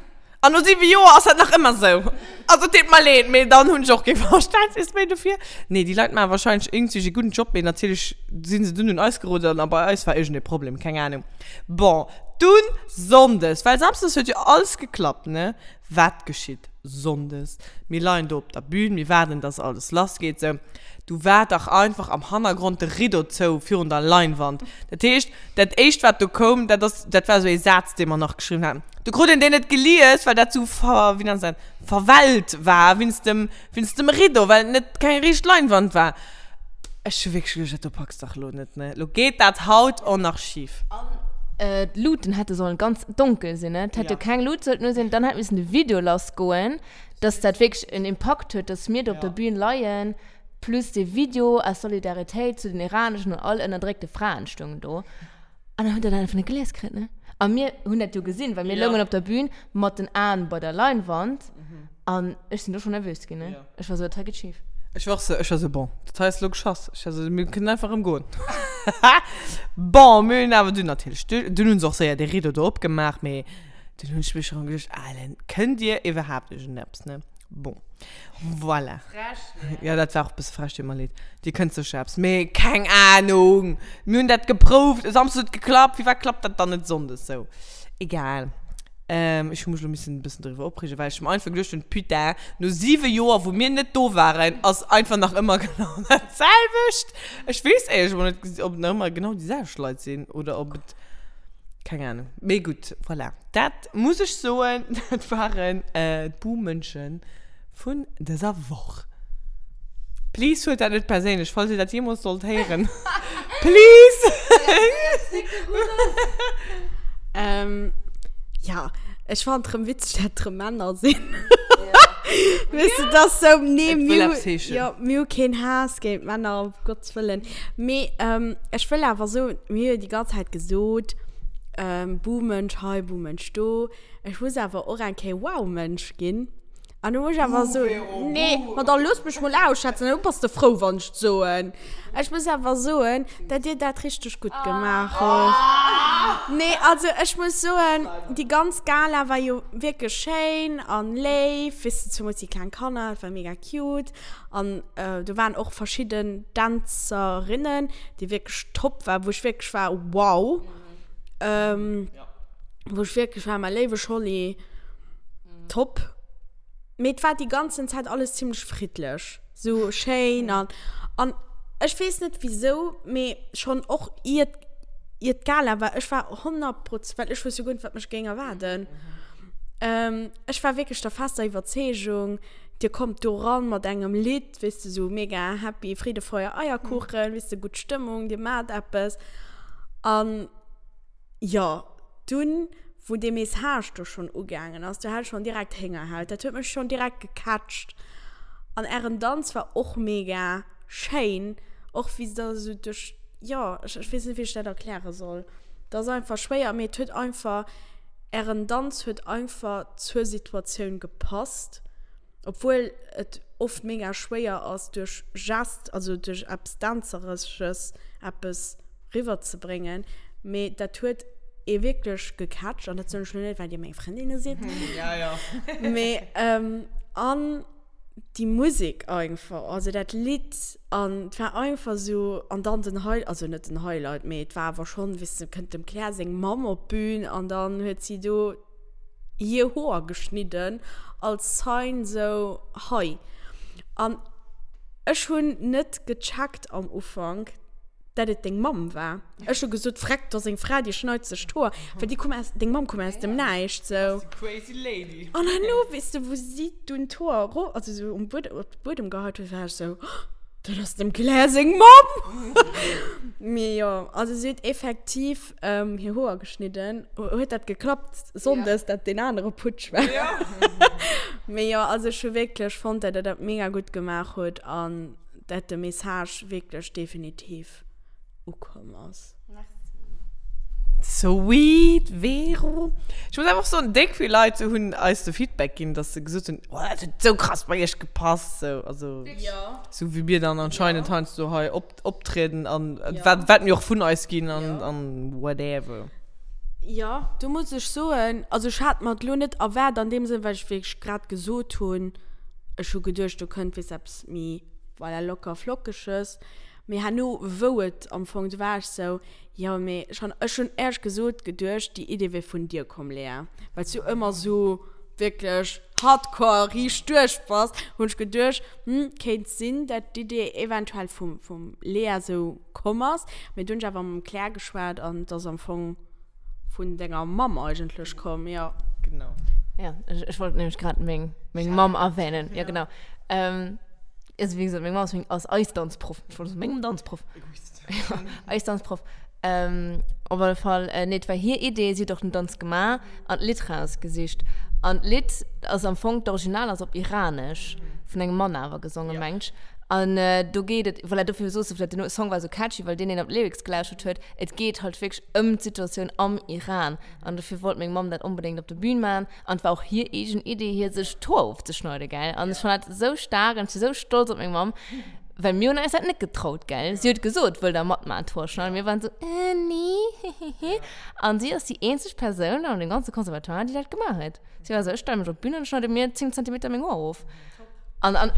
An no 7 Joer ass dat nach ëmmer sou. Also et deet mer leed, mee dann hunn ech och kee Verständnis méi dofir. Nee, déi Leit maache wahrscheinlech iergendwéi e gudden Job, mee natierlech si se dunn un eis geroden a bei eis war iergendee Problem, keng Ahnung. Bon, dunn Sonndes, well Samsdes huet jo alles geklappt, ne? Wat geschitt Sonndes? Mir leien do op der Bühn, mir waarden, dass alles lass geet, sou. Du war dach einfach am Hannergrond de Rideau zou virun der Leinwand. Dat heescht, Dat éischt wat do koum, dat ass, dat war esou ee Saz dee mer nach geschriwwen haten. Du krut een deen net gelies, well dat sou ver, wéi nennt se dat, verwellt war wéinst dem, wéinst dem Rideau, well et net keng riicht Leinwand war. Ech hu wierklech geduecht, dat do packs dach elo net, ne? Elo geet dat haut och nach schif. An d'Luuten hätte sollen ganz donkel sinn, ne? Et hätt jo keng Lut sollten u sinn, dann hätt missen de Video lassgoen. Dass dat wierklech en Impakt huet, dass mir do op der Bühn leien, plus dee Video aus Solidaritéit zu den iraneschen an all ënnerdréckte Fraen stoungen do. An dann huet der dat einfach net gelies kritt, ne? A mir hunn dat jo gesinn, well mir loungen op der Bühn mat den Aen bei der Leinwand an ech sinn do schonn nervös ginn, ne? Ech war sou, dat hei geet schif. Ech war och sou, ech war sou, bon, dat hei ass elo geschoss. Ech war sou, mir kënnen einfach erëm goen. Bon, mir hunn awer dunn natierlech, dunn hu se och séier dee Rideau do opgemaach, mee dunn hunn ech mech erëm geduecht, Alen, kënnt Dir iwwerhaapt iergendeppes, ne? Bon, voilà. Frech, ne? Ja, dat war och e bësse frech, deet mer leed. Dir kënnt sécher eppes, mee keng Ahnung! Mir hunn dat geprouft, e Samsdes huet geklappt, firwat klappt dat dann net sonndes sou? Egal. Ech hu mech elo missen e bëssen doriwwer opreegen, well ech mer einfach geduecht hunn, Putain, no 7 Joer, wou mir net do waren, ass einfach nach ëmmer genau dat selwecht. Ech weess éierlech emol net, ob et nach ëmmer genau déi selwecht Leit sinn oder ob et, keng Ahnung. Mee gutt, voilà. Dat muss ech soen, dat waren d'Buhmënsche vun dëser Woch. Please huelt dat net perséinlech, falls dir dat jeemools sollt héieren. Please! Ja, ech fannen et rëm witzeg, dat et rëm Männer sinn. Weess de, dat ass sou, nee, Et wëll mir hu, eppes heeschen. jo, mir hu keen Haass géint Männer, um Gottes Wëllen. Mee ech wëll awer soen, mir hu jo déi ganz Zäit gesot, Buhmënsch hei, Buhmënsch do. Ech muss awer och eng Kéier Wow-Mënsch ginn. An du muss ech awer soen, nee, ma da looss mech mol ausschwätzen, da bass de frou, wann ech et soen. Ech muss awer soen, dat dir dat richteg gutt gemaach hutt. Nee, also ech muss soen, déi ganz Gala war jo wierklech schéin an léif, weess de, zemools déi kleng Kanner, dat war mega cute. An do waren och verschidden Dänzerinnen, déi wierklech top waren, wou ech wierklech war, wow. Wou ech wierklech war, mäi léiwe Scholli, top. Mee et war déi ganzen Zäit alles zimmlech friddlech, sou schéin an, an ech weess net wisou, mee schonn och iert, iert d'Gala war, ech war 100 Proz-, well ech wousst jo guer net, wat mech géing erwaarden. Ech war wierklech der fester Iwwerzeegung, dir kommt do ran mat engem Lidd, weess de, sou mega happy, Friede, Feuer, Eierkuchen, weess de, gutt Stëmmung, dir maacht eppes an. Jo, dunn, wou dee Message do schonn ugaangen ass, do hat ech schonn direkt Héngerhaut. Dat huet mech schonn direkt gecatcht. An ären Danz war och mega schéin, och wéi se da esou duerch, jo, ech, ech weess net, wéi ech dat erkläre soll. Dat ass einfach schwéier, mee et huet einfach, ären Danz huet einfach zur Situatioun gepasst. Obwuel et oft mega schwéier ass duerch Gest, also duerch eppes Dänzeresches eppes riwwer ze bréngen, mee dat huet ee wierklech gecatcht an dat soen ech lo net well dir meng Frëndinne sidd. Mee an déi Musek einfach, also dat Lidd an et war einfach sou an dann den High, also net den Highlight, mee et war awer schonn, weess de, kënnt dem Claire seng Mamm op d'Bün an dann huet si do hir Hoer geschnidden als Sign sou hei. An ech hunn net gecheckt am Ufank, dat et deng Mamm war. Ech hu gesot, Vreck, do ass eng Fra, déi schneit sech d'Hoer. Well déi koum aus, deng Mamm koum aus dem Näischt sou. Crazy lady. An herno, weess de, wou si dunn d'Hoer ero, also sou um Buedem, op de Buedem geheit huet, war ech sou, Dat ass dem Claire seng Mamm! Mee jo, also si huet effektiv hir Hoer geschnidden. Huet dat geklappt sonndes, dat deen anere Putsch war? Mee jo, also ech hu wierklech fonnt, dat der dat mega gutt gemaach hutt an dat de Message wierklech definitiv ukomm ass. Sweet Vero. Ech muss einfach soen, déck vill Leit hunn eis de Feedback ginn, dass se gesot hunn, oh dat huet sou krass bei iech gepasst, sou, also sou wéi mir dann anscheinend heiansdo hei op, optrieden an wat, wat mir och vun eis ginn an, an whatever. Jo, do muss ech soen, also ech hat mer et lo net erwaart an deem Sënn, well ech wéi ech grad gesot hunn, ech hu geduecht do kënnt weess eppes méi, voilà, locker flockeges. Mee herno wou et am Fong, du war ech sou, jo mee ech han, ech hunn éierlech gesot geduecht déi Idee wier vun dir komm Lea, well s du ëmmer sou wierklech hardcore riicht duerch bass, hunn ech geduecht, hm kéint sinn dat d'Idee eventuell vum vum Lea sou komm ass, mee du hunn ech awer mam Claire geschwat an et ass am Fong vun denger Mamm eigentlech komm, jo. Genau. Ja, ech, ech wollt nämlech grad meng, meng Mamm erwähnen. Ja, genau. Ähm, also wéi gesot, meng Mamm ass meng, ass eis Danzproff. Ech wollt soen, mengem Danzproff. Egoist. Ja, eis Danzproff. Ähm, op alle Fall, äh, nee, et war hir Idee, si huet och den Danz gemaach an d'Lidd rausgesicht. An d'Lidd ass am Fong, d'Original ass op Iranesch, vun engem Mann awer gesongen, mengt ech. An do geet et, voilà, dofir soos de vläicht, den Song war esou catchy, well deen een op d'Lyrics gelauschtert huet. Et geet halt wierklech ëm d'Situatioun am Iran. An dofir wollt meng Mamm dat onbedéngt op der Bühn maachen. An et war och hir eegen Idee, hir sech d'Hoer ofzeschneiden, gell. An ech fannen dat esou staark an ech si sou stolz op meng Mamm, well mir hunn eis dat net getraut, gell. Si huet gesot, wëllt der matmaachen, d'Hoer schneiden? Mir waren esou, äh, nee, hehehe. An si ass déi eenzeg Persoun an dem ganze Conservatoire, déi dat gemaach huet. Si war esou, ech stelle mech op d'Bün an schneide mir 10 Zentimeter meng Hoer of. An, an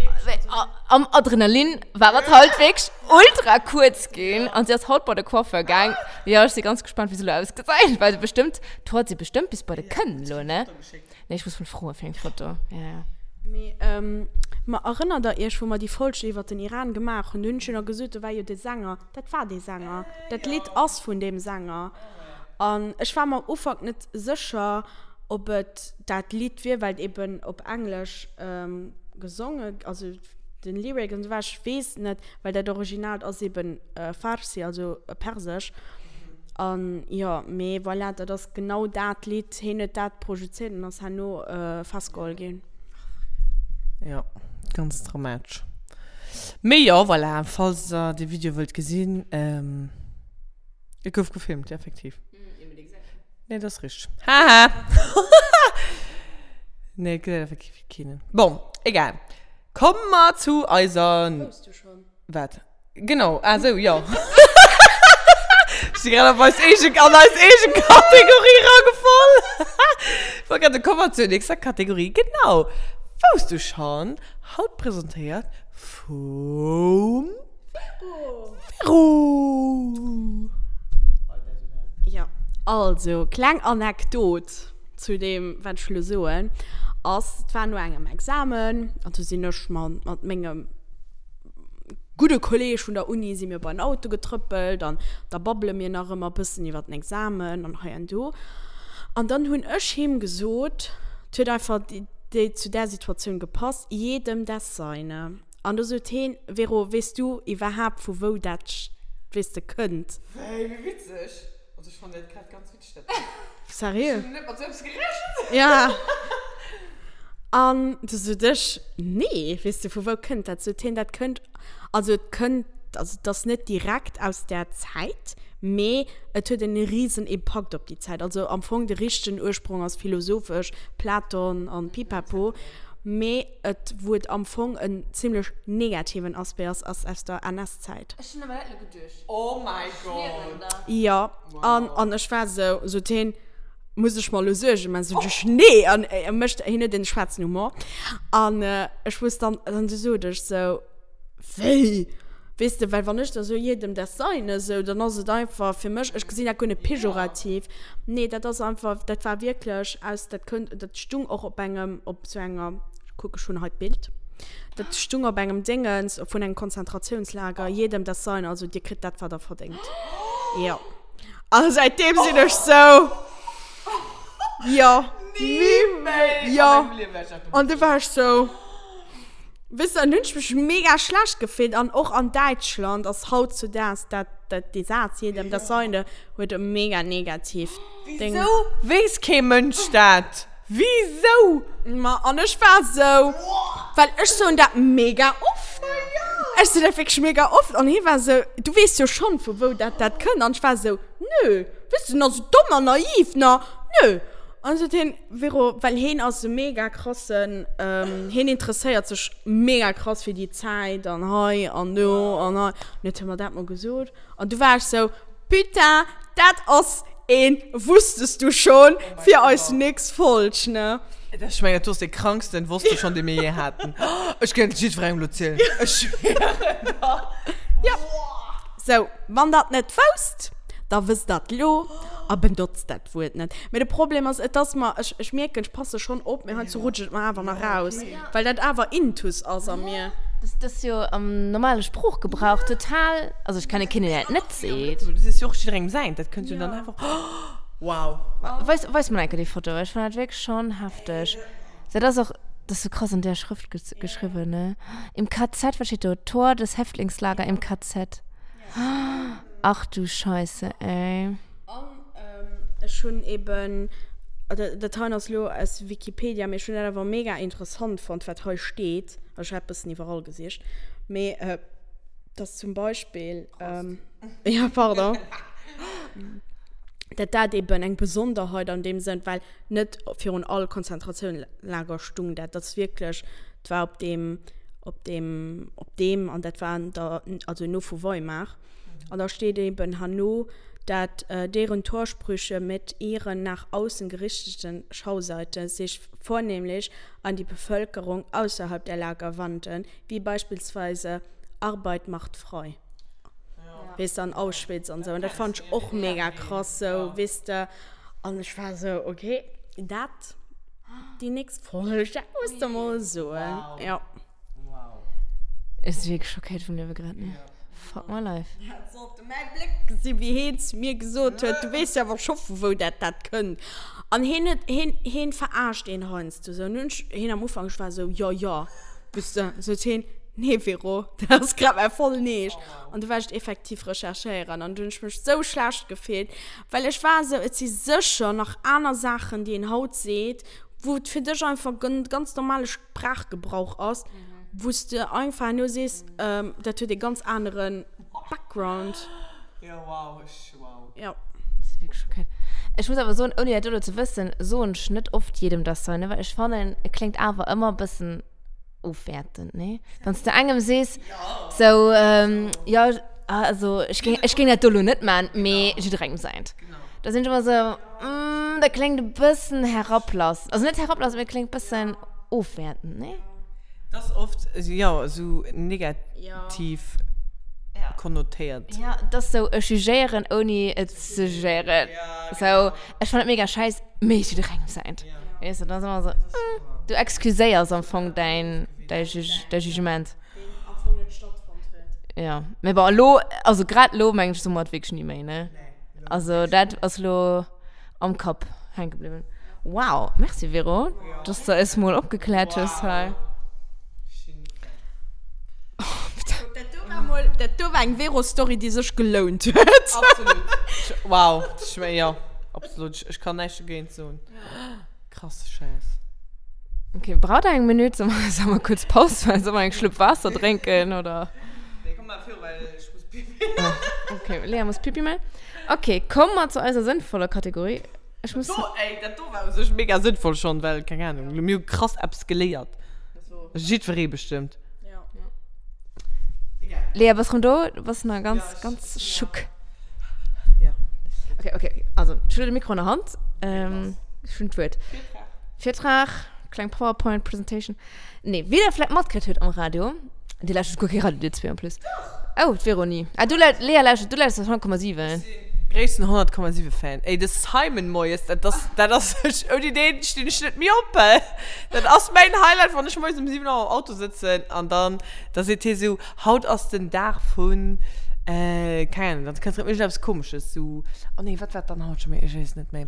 am Adrenalin war et halt wierklech ultra kuerz ginn. An si ass haut bei de Coiffeur gaang. Jo, ech si ganz gespannt, wéi se elo ausgesäit, well bestëmmt, d'Hoer si bestëmmt bis bei de Kënn elo, ne? Nee, ech muss mol froe fir eng Foto. Ja, ja. Mee, ma erënnert der iech, wou mer déi Folg iwwert den Iran gemaach hunn? Do hunn ech jo nach gesot, do war jo de Sänger. Dat war dee Sänger. Dat Lidd ass vun deem Sänger. An ech war mer am Ufank net sécher, ob et dat Lidd wier, well et eben op Englesch gesonge, also den Lyric an esou war. Ech weess net, well dat Originaalt ass eben Farsi, also Persesch. An jo, mee voilà, dat ass genau dat Lidd. Hien huet dat projezéiert an ass herno festgeholl ginn. Jo, ganz dramatesch. Mee jo, voilà, falls der de Video wëllt gesinn, et gouf gefilmt, effektiv. Nee, dat ass richteg. Haha! Nee, et gesäit effektiv keen. Bon, egal. Komme mer zu eiser. Wousst du schonn? Wat? Genau, ah sou, jo. Ech si grad op eis eege, an eis eege Kategorie ragefall. Ech wollt grad soen, komme mer zur nächster Kategorie. Genau. Wousst du schonn? Haut presentéiert vum Vero. Vero. Jo, also, kleng Anekdot zu deem, wat ech elo soen, ass, et war no engem Examen an du sinn ech mat mengem gudde Kolleg vun der Uni si mir bei den Auto getrëppelt an da babbele mir nach ëmmer e bëssen iwwer den Examen an hei an do. An dann hunn ech him gesot, et huet einfach déi zu där Situatioun gepasst, jedem das seine. An do sot heen, Vero, weess du iwwerhaapt vu wou dat, weess de, kënnt? Wéi, wéi witzeg! Also ech fannen dat grad ganz witzeg, dat. Seriö? Ech hunn net mat sou eppes gerechent! Ja. An du sot ech, Nee, weess de, vu wou kënnt dat? Sot hien, dat kënnt, also et kënnt, also et ass net direkt aus där Zäit, mee et huet en risen Impakt op déi Zäit. Also am Fong de richtegen Ursprong ass philosophesch, Platon an Pipapo, mee et, wou et am Fong en zimlech negativen Aspect ass, ass aus der NS-Zäit. Ech hunn awer dat elo geduecht. Oh my God! Jo, an, an ech war esou, sot hien, muss ech mer elo Suergen man? Sot ech, nee! An e mécht, hien huet en schwaarzen Humor. An ech wusst dann, dann sot ech sou, wéi? Weess de, well wann ech da sou jedem das Seine, sou, dann ass et einfach fir mech, ech gesinn dat guer net pejorativ. Nee, dat ass einfach, dat war wierklech aus, dat kënnt, dat stung och op engem, op sou enger, kuck, ech hunn hei d'Bild, dat stung op engem Déngens vun engem Konzentratiounslager, jedem das Seine, also dir kritt dat, wat der verdéngt. Jo. A säitdeem sinn ech sou, jo, Ni méi jo. a mengem Liewe wäert ech dat An du war ech sou, weess de, an hunn ech mech mega schlecht gefillt. An och an Däitschland ass hautzudaags dat, dat, dee Saz, jedem das Seine, huet e mega negativ Ding. Wisou weess kee Mënsch dat? Wisou? Ma an ech war sou, well ech soen dat mega oft. Ech soen dat wierklech mega oft. An hie war sou, du weess jo schonn, vu wou dat dat kënnt. An ech war sou, nö, weess du, nach sou domm an naiv, na, nö. An sot hien, Vero, well hien ass e mega krassen, hien interesséiert sech mega krass fir déi Zäit an hei an do an hei. An huet hie mer dat mol gesot. An du war ech sou, Putain, dat ass een Wusstest du schon fir eis nächst Folg, ne? Ech mengen, dat do ass dee kranksten Wosst du schon, dee mir je haten. Ech kéint et jiddwerengem elo zielen. Ech schwieren der. Jo. Sou, wann der et net wousst, da wësst der et lo a benotzt dat Wuert net. Mee de Problem ass, et ass mer, ech, ech mierken, ech passe schonn op, mee heiansdo rutscht et mer awer nach raus, well dat awer intus ass a mir. Dat ass jo am normale Sproochgebrauch total, also ech kenne keen, deen dat net seet. Dat ass jo och jidderengem säint, dat kënnt jo dann einfach, wow. Weis, weis mer enke déi Foto, ech fannen dat wierklech schonn hefteg. Dat ass och, dat ass sou krass an där Schrëft geschriwwen, ne? Im KZ, wat steet do? Tor des Häftlingslager im KZ. Ach du Scheisse, ey. An ech hunn eben. Dat hei ass elo aus Wikipedia, mee ech hunn dat awer mega interessant fonnt, wat hei steet. Also ech hat bëssen iwwerall gesicht, mee dass zum Beispill, jo pardon, dat dat eben eng Besonderheit an deem Sënn, well net virun all Konzentratiounlager stung dat, dat ass wierklech, dat war op deem, op deem, op deem an dat war an der, also no vu Weimar. An da steet eben herno, dat deren Torsprüche mit ihren nach außen gerichteten Schauseite sich vornehmlich an die Bevölkerung ausserhalb der Lager wandten, wie beispielsweise Arbeit macht frei. Weess de, an Auschwitz an esou. An dat fand ech och mega krass sou, weess de. An ech war sou, okay, dat, déi nächst Folg, dat muss de mol soen. Jo. Wow. Ech si wierklech schockéiert vum Liewe grad, ne? Fuck my life. Dat sollt de mäi Bléck gesi wéi heen zu mir gesot huet, du weess jo awer scho vu wou dat dat kënnt. An heen huet, heen, heen verarscht een heiansdo sou. An hunn ech heen am Ufank, ech war sou, jo jo, weess de, sot heen, nee Vero, dat ass grad mäi vollen Eescht. An du war ech et effektiv recherchéieren an du hunn ech mech sou schlecht gefillt, well ech war sou, et si sécher nach aner Saachen déi een haut seet, wou et fir dech einfach ganz normale Sprachgebrauch ass, wou s de einfach herno sees, dat huet e ganz anere Background. Jo, wow, ech, wow. Jo. Dat ass wierklech okay. Ech muss awer soen, ouni dat elo ze wëssen, soen ech net oft jedem das Seine, well ech fannen, et kléngt awer ëmmer e bëssen ofwäertend, nee? Wann s de engem sees, sou, jo, also ech géing, ech géing dat do elo net man, mee jidderengem säint. Da sinn ech ëmmer sou, mm, dat kléngt e bëssen herablassend. Also net herablassend, mee et kléngt e bëssen ofwäertend, nee? Dat ass oft, jo, esou negativ konnotéiert. Ja, et ass sou, ech jugéieren, ouni et ze jugéieren. Sou, ech fannen et mega schäiss, mee jidderengem säint. Weess de, dann ass ëmmer sou, mm, du excuséiers am Fong däin, däi Juge, däi Jugement. Deen am Fong net stattfonnt huet. Ja, mee bon, elo, also grad elo mengen ech, soe mer et wierklech ni méi, ne? Also dat ass elo am Kapp hänke bliwwen. Wow, merci Vero, dass de eis mol opgekläert hues hei. Dat do war mol, dat do war eng Vero-Story, déi sech gelount huet. Absolut. Wow, ech, jo, absolut. Ech kann näischt dogéint soen. Krasse Schäiss. Okay, braucht der eng Minute? Soll mer, soll mer kurz Paus maachen? Soll mer eng Schlupp Waasser drénken, oder? Nee, komm mal viru, well ech muss Pipi. Ah, okay, Lea muss Pipi maachen. Okay, komme mer zu eiser sënnvoller Kategorie. Ech muss. Do, ey, dat do war u sech mega sënnvoll schonn, well, keng Ahnung, mir hu krass eppes geléiert. Jiddweree bestëmmt. Ja. Lea, bass rëm do? Du bass nach ganz, ganz schock. Ja. Okay, okay. Also, ech hunn de Mikro an der Hand. Ähm, ech hunn d'Wuert. Virtrag. Virtrag, kleng PowerPoint-Presentation. Nee, wéi der vläicht matkritt hutt am Radio, Dir lauschtert guer kee Radio, dir zwee en plus. Oh, d'Véronique. Ah, du, Lea lauschtert, du lauschters 100,7. Ech sinn gréissten 100,7 Fan. Ey, de Simon moies, dat ass, dat ass, ouni deen stinn ech net méi op. Dat ass mäin Highlight, wann ech moies um 7 Auer am Auto sëtzen an dann, da seet hie sou, haut ass den Dag vun, keng Ahnung, dann kënnt erëm iergendeppes Komesches, sou, oh nee, wat war dann haut scho méi, ech weess et net méi.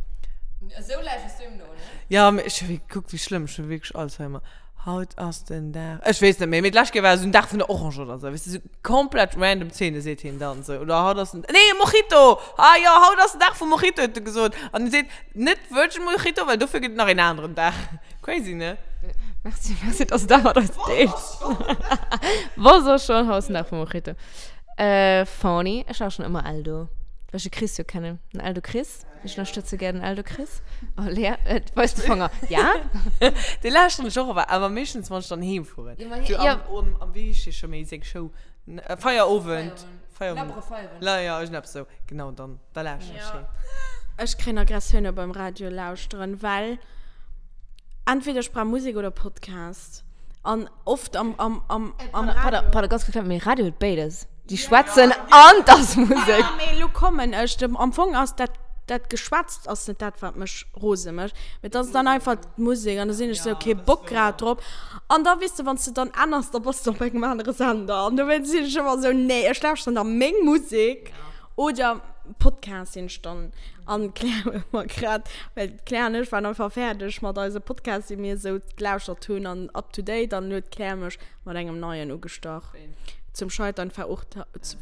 Esou lauschters du him no, ne? Ja, mee ech, kuck wéi schlëmm, ech hu wierklech Alzheimer. Haut ass den Dag, ech weess net méi, mee d'lescht Kéier war esou den Dag vun der Orange oder esou, weess de, esou komplett random Zeene seet hien dann esou. Oder haut ass den, nee, Mojito! Ah jo, haut ass den Dag vum Mojito, huet e gesot. An e seet net Virgin Mojito, well dofir gëtt et nach een aneren Dag. Crazy, ne? Merci, merci, dass du dat mat eis deels. Wosst och schon, haut ass den Dag vum Mojito. Äh, funny, ech war schon ëmmer Eldo, well ech de Chris jo kennen, den Eldo Chris. Ech ënnerstëtze gär den Eldo Chris. Oh, Lea, et weist de Fanger. Ja? Dee lauschteren ech och awer, awer meeschtens, wann ech dann heem fueren. Ja, ma hie, ja. Am, am, wéi heescht dee scho méi, seng Show? Feierowend. Feierowend. Labbere Feierowend. La, ja, iergendeppes esou. Genau, dann, da lauschteren ech heen. Ech kréien Aggressioune beim Radio lauschteren, well entweder ech brauch Musek oder Podcast. An oft am, am, am, am Pardon, Radio. pardon, pardon, ganz kurz, mee Radio huet béides. Déi schwätzen an 't ass Musek. Ja, mee elo kommen ech. Am Fong ass dat, dat Geschwätzt ass net dat, wat mech rose mécht, mee et ass dann einfach d'Musek an da sinn ech sou, kee Bock grad drop. An da, weess de, wann s de dann änners, da bass de op engem anere Sender. An dowéinst sinn ech ëmmer sou, nee, ech lauschteren da meng Musek oder. Podcast sinn ech dann an d'Claire huet mer grad, well d'Claire an ech waren einfach fäerdeg mat eise Podcast, déi mir esou gelauschtert hunn an up to date an huet d'Claire mech mat engem neien ugestach. Zum Scheitern verurteilt.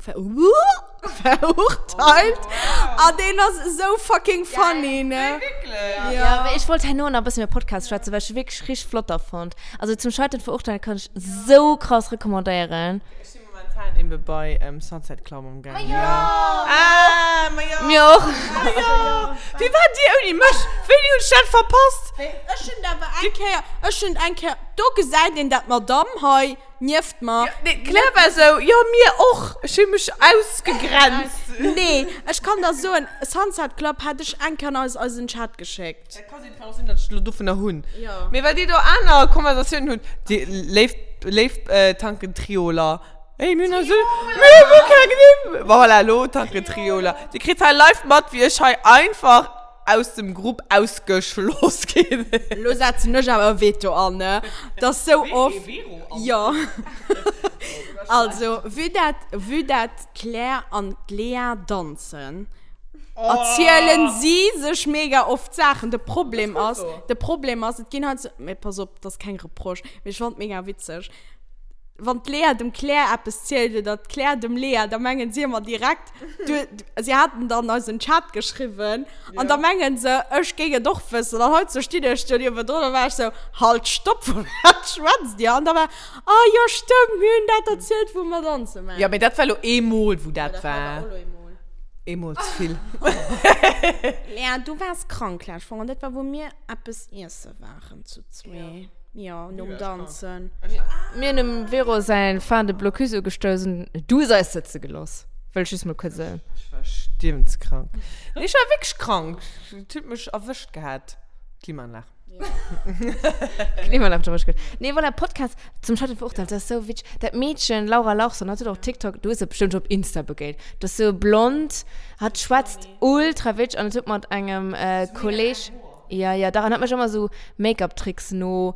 Verurteilt. An deen ass esou fucking funny, ne? Wierklech? Ja, mee ech wollt herno nach e bëssen iwwer Podcasts schwätzen, well ech se wierklech richteg flott da fonnt. Also Zum Scheitern verurteilt kann ech esou krass recommandéieren. Ech si momentan eben bei Sunset Club am gaangen. Ma jo! Ah, ma jo! Mir och. Ma jo! Wéi waart dir ouni mech? Wéini hunn ech dat verpasst? Ech hunn awer eng Kéier, ech hunn eng Kéier, do gesäit een dat d'Madame hei nieft mer. Nee, d'Claire war esou, jo mir och. Ech hu mech ausgegrenzt. Nee, ech kann der soen, Sunset Club hat ech eng Kéier an eis eisen Chat geschéckt. Dat ka sinn, kann och sinn, datt ech elo dovunner hunn. Jo. Mee well dir do aner Konversatiounen hutt, déi léif, léif Tankentrioler. Ey, mir hunn eis esou, mir hu guer keng Nimm. Bon, voilà, elo Tankentrioler. Dir kritt hei live mat, wéi ech hei einfach aus dem Grupp ausgeschloss ginn. Elo setzen ech awer e Veto an, ne? Dat ass sou oft. Jo. Also, vue dat, vue dat d'Claire an d'Lea danzen, erzielen si sech mega oft Saachen. De Problem ass, de Problem ass, et ginn halt sou, mee pass op, dat ass keng Reproche, mee ech fannen et mega witzeg, wann d'Lea dem Claire eppes zielt oder d'Claire dem Lea, da mengen si ëmmer direkt, du, si haten dann eisen Chat geschriwwen an da mengen se, ech géing et och wëssen. An haut sou stinn ech do niewendrun an war ech sou, Halt, stopp, vu wat schwätzt dir? An da war, ah jo, stëmmt, mir hunn dat erzielt, wou mer danze waren. Jo, mee dat war lo eemol, wou dat war. Eemol ze vill. Lea, du waars krank lescht Woch an dat war, wou mir eppes iesse waren zu zwee. Jo, nom Danzen. Mir hunn dem Vero säin Fin de Blocus ugestouss an du hues eis sëtze geloss. Wëll ech just mol kuerz soen. Ech war stierwenskrank. Nee, ech war wierklech krank. Et huet mech erwëscht gehat, d'Klimaanlag. D'Klimaanlag huet erwëscht gehat. Nee, voilà, Podcast zum Scheitern verurteilt, dat ass sou witzeg. Dat Meedchen, Laura Larsson, hat huet och TikTok, du hues se bestëmmt scho op Insta begéint. Dat ass sou blond, hat schwätzt ultra witzeg an et huet mat engem Kolleg. Ja, ja, dach, an hat mech ëmmer sou Make-up-Tricks no.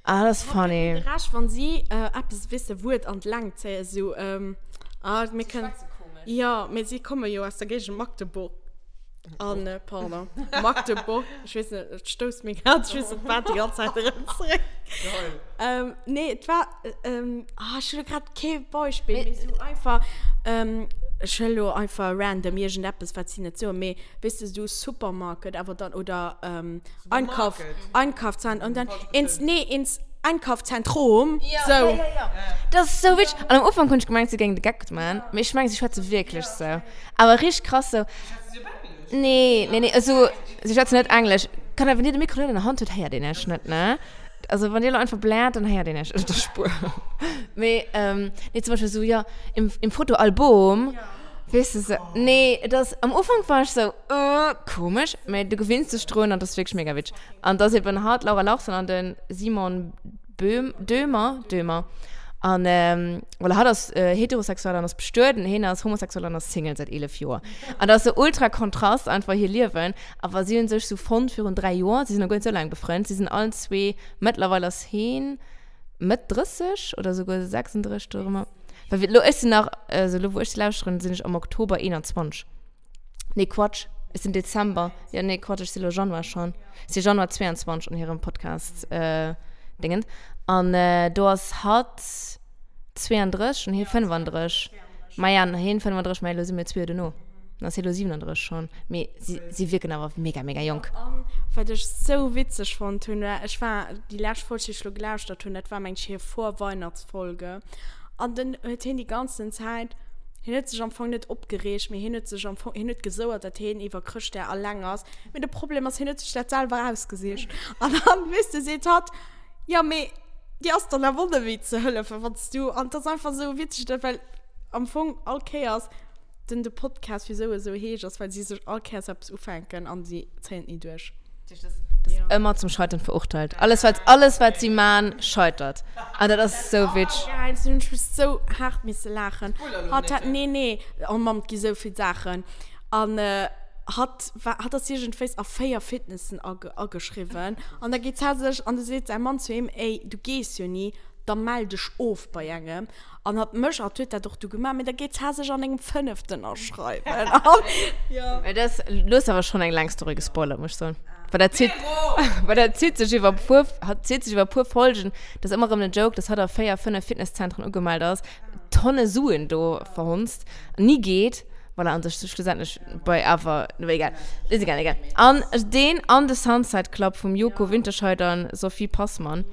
Ah, dat ass funny. De Rescht, wann si eppes, weess de, Wuert an d'Längt zéien, sou, ah, mir kënnen. Si schwätze komesch. Jo, mee si komme jo aus der Géigend Magdeburg. An, pardon, Magdeburg, ech weess net, et stousst mir grad, ech weess net wat, déi ganz Zäit erëm zeréck. Geil. Nee, et war, ah, ech hu lo grad kee Beispill, mee sou einfach, ech huele lo einfach random iergendeppes, wat si net soen, mee Weess de, sou Supermarket, awer dann, oder Einkauf, Einkaufszentrum, und dann ins, nee, ins Einkaufszentrum, Ja, sou. ja, ja, ja. Dat ass sou witzeg. An am Ufank hunn ech gemengt, si géingen de Geck man, mee ech mengen, si schwätze wierklech sou. Awer richteg krass sou. Schwätze si op Englesch? Nee, nee, nee, also si schwätzen net Englesch. Kann awer, wann dir de Mikro net an der Hand hutt, héiert een iech net, ne? Also wann dir elo einfach bläert, dann héiert een iech op der Spuer. Mee, nee, zum Beispill sou, jo, im, im Fotoalbum. Weess de sou, nee, et ass, am Ufank war ech sou, äh, komesch, mee du gewinns dech drun an et ass wierklech mega witzeg. An et ass eben hatt, d'Laura Larsson an de Simon Böhm, Döhmer, Döhmer. An voilà, hatt ass heterosexuell an ass bestuet an hien ass homosexuell an ass Single säit 11 Joer. An dat ass sou ultra Kontrast einfach hir Liewen. Awer si hunn sech sou fonnt virun 3 Joer, si sinn nach guer net sou laang befrënnt, si sinn allen zwee, mëttlerweil ass hien Mëtt 30 oder souguer 36 dorëmmer. Well elo, ech sinn nach, also elo wou ech se lauschteren, sinn ech am Oktober 21. Nee, Quatsch, ech sinn Dezember. Jo, nee, Quatsch, ech sinn elo Januar schonn. Ech si Januar 22 an hirem Podcast Dingen. An do ass hatt 32 an hie 35. Maja, hien 35, mä elo si mir zwee Joer dono. Dann ass hie elo 37 schonn. Mee si, si wierken awer mega, mega jonk. An wat ech sou witzeg fonnt hunn, war, ech war déi lescht Folg, déi ech elo gelauschtert hunn, dat war meng ech hir Vorweihnachtsfolge. An dann huet hien déi ganzen Zäit, hien huet sech am Fong net opgereegt, mee hien huet sech am Fong, hien huet gesouert, datt hien iwwer Chrëschtdag alleng ass. Mee de Problem ass, hien huet sech dat selwer ausgesicht. An dann, weess de, seet hatt, Jo, mee dir ass dann awer och net méi ze hëllefen, wann s du, an et ass einfach sou witzeg, dat well am Fong all Kéiers den de Podcast wisou esou heescht, ass well si sech all Kéiers eppes ufänken an si zéien et ni duerch. Dat ass ëmmer zum Scheitern verurteilt. Alles wat, alles wat si man, scheitert. An dat ass sou witzeg. Geil, do hunn ech mech sou haart misse laachen. Hatt hat, nee, nee, oh Mamm, et gi sou vill Saachen. An hatt war, hatt ass iergendwéis a 4 Fitnessen ageschriwwen. An da geet hatt sech, an da seet säi Mann zu him, Ey, du gees jo ni. Da mell dech of bei engem. An hatt mécht, hatt huet dat och du gemaach, mee da geet d'Har sech an engem fënneften aschreiwen. An, jo. Mee dat, du hues awer schonn eng laang Story gespoilert, muss ech soen. Well dat zitt, well dat zitt sech iwwer puer, hat zitt sech iwwer puer Folgen. Dat ass ëmmer erëm den Joke, dass hatt a 4, 5 Fitnesszentren ugemellt ass, Tonne Suen do verhonzt, ni geet. Voilà, an sech schlussendlech bei awer, no egal, ist egal, egal. An deen an de Sunset Club vum Joko Winterscheidt an Sophie Passmann,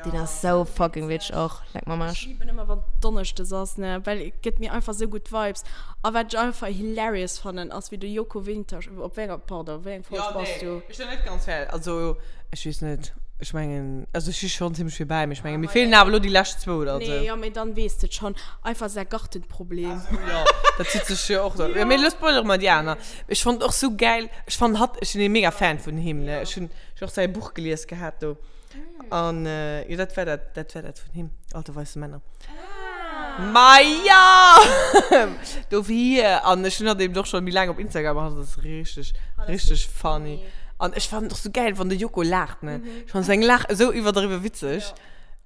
deen ass sou fucking witzeg och, leck mer am Arsch. Ech liben ëmmer wann Donneschdes ass, ne, well et gëtt mir einfach sou gutt Vibes. A wat ech einfach hilarious fannen ass wéi de Joko Wintersch, op wéi enger, pardon, wéi eng Folg bass du? Ech sinn net ganz fäerdeg, also ech weess net, ech mengen, also ech si schonn zimmlech vill bäi, mee ech mengen mir feelen awer elo déi lescht zwou oder esou. Nee, jo, mee dann weess de et schonn. Einfach säi Gartenproblem. Jo, dat zitt sech jo och. Jo, mee elo spoilere mer déi aner. Ech fonnt och sou gäil, ech fannen hatt, ech sinn ee mega Fan vun him, ne, ech hunn och säi Buch gelies gehat do. An jo, dat war dat, dat war dat vun him, Alte weiße Männer. Ma ja! Dofir, an ech hunn hatt eben och scho méi laang op Instagram, an hatt ass richteg, richteg funny. An ech fannen et och sou gäil, wann de Joko laacht, ne? Ech fannen seng Laach esou iwwerdriwwe witzeg.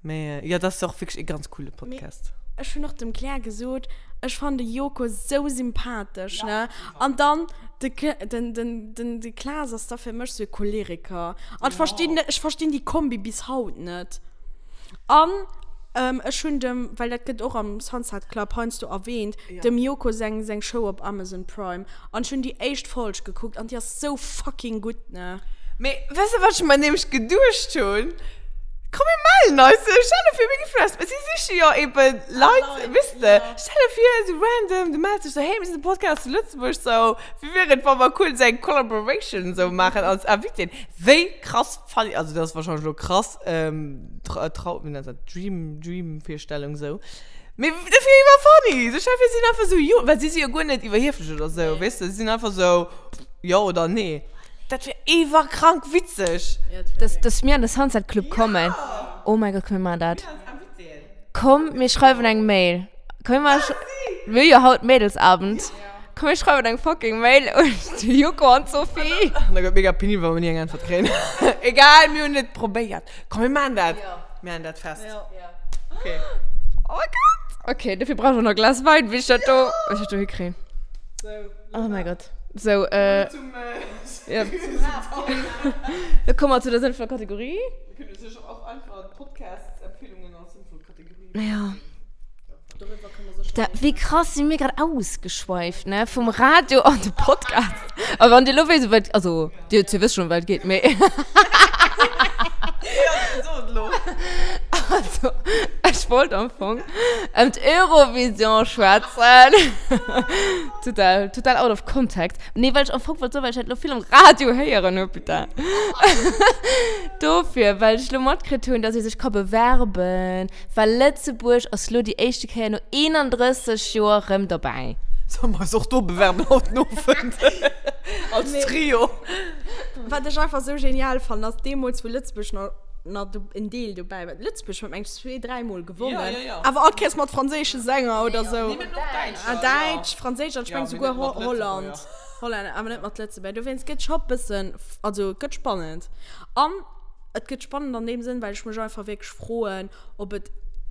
Mee jo, dat ass och wierklech e ganz coole Podcast. Mee ech hunn och dem Claire gesot, ech fannen de Joko sou sympathesch, ne? An dann de, den, den, den, de Klaas ass da fir mech sou e Choleriker. An ech verstinn net, ech verstinn déi Kombi bis haut net. An ech hunn dem, well dat gëtt och am Sunset Club heiansdo erwähnt, dem Joko seng, seng Show op Amazon Prime. An ech hunn déi éischt Folg gekuckt an déi ass sou fucking gutt, ne? Mee weess de wat ech mer nämlech geduecht hunn? Komm mir mellen eis, stell der vir mir gi vläicht, si siche jo eben Leit, weess de, stell der vir esou random, du mells dech sou, hey mir sinn de Podcast zu Lëtzebuerg, sou wéi wier et wa mer cool esou eng Collaboration esou maachen als Invitéen, wéi krass funny, also dat ass wahrscheinlech elo krass, Trau, wéi nennt dat, Dream, Dream-Virstellung esou. Mee dat wier iwwer funny. Sou stell vir, si sinn einfach sou, jo, well si si jo guer net iwwerhieflech oder sou, weess de, si sinn einfach sou, jo oder nee. Dat wier iwwerkrank witzeg. Dass, dass mir an de Sunset Club kommen. Oh mäi Gott, komm mir maachen dat. Komm, mir schreiwen eng Mail. Komm mir maachen, mir hu jo haut Mädelsabend. Komm mir schreiwen eng fucking Mail un de Joko an d'Sophie. An da gëtt mega penibel, wa mir ni eng Äntwert kréien. Egal, mir hunn et probéiert. Komm, mir maachen dat. Mir maachen dat fest. Okay. Oh mein Gott. Okay, dafür brauch ich noch ein Glas Wein, wie ich das da, wie ich das da hinkriege. So. Oh mein Gott. So, äh. Zum, äh, ja. Da kommen wir zu der sinnvollen Kategorie. Wir können natürlich auch einfach Podcast-Empfehlungen als sinnvoll Kategorie. Ja. Da, wéi krass si mir grad ausgeschweift, ne? Vum Radio an de Podcast. A wann Dir lo wéisst, wat, also, Dir, Dir wësst schon, wat et geet, mee. Ja, so et lo. Also, ech wollt am Fong ëm d'Eurovision schwätzen. Total, total out of context. Nee, well ech am Fong wollt soen, well ech dat lo vill am Radio héieren hu, putain. Dofir, well ech lo matkritt hunn, dass ee sech ka bewerben. Well Lëtzebuerg ass lo déi éischte Kéier no 31 Joer rëm dobäi. Solle mer eis och do bewerben haut den Owend? Als Trio. Wat ech einfach sou genial fannen, ass deemools, wou Lëtzebuerg nach, nach do, en Deel dobäi war. Lëtzebuerg huet, meng ech, zwee, dräimol gewonnen. Ja, ja, ja. Awer all Kéiers mat franséische Sänger oder sou. Nee, mir hunn och Däitscher. Ah, Däitsch, Franséisch an ech Ja, meng mee souguer net mat Ho-, Holland. Lëtzebuerger. Hollänner, awer net mat Lëtzebuerger. Dowéinst gëtt scho bëssen, also et gëtt spannend. An Et gëtt spannend an deem Sënn, well ech mech einfach wierklech froen, ob et,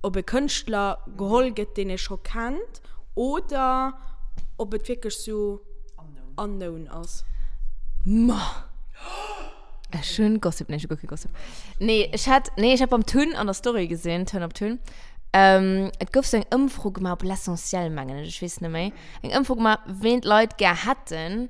ob e Kënschtler geholl gëtt, deen ee scho kennt, oder ob et wierklech sou unknown ass. Ma! Ech hunn Gossip, nee, ech hu guer kee Gossip. Nee, ech hat, nee, ech hat beim Tun an der Story gesinn, Turn Up Tun, et gouf sou eng Ëmfro gemaach op L'Essentiel, mengen ech, ech weess net méi, eng Ëmfro gemaach, ween d'Leit gär hätten,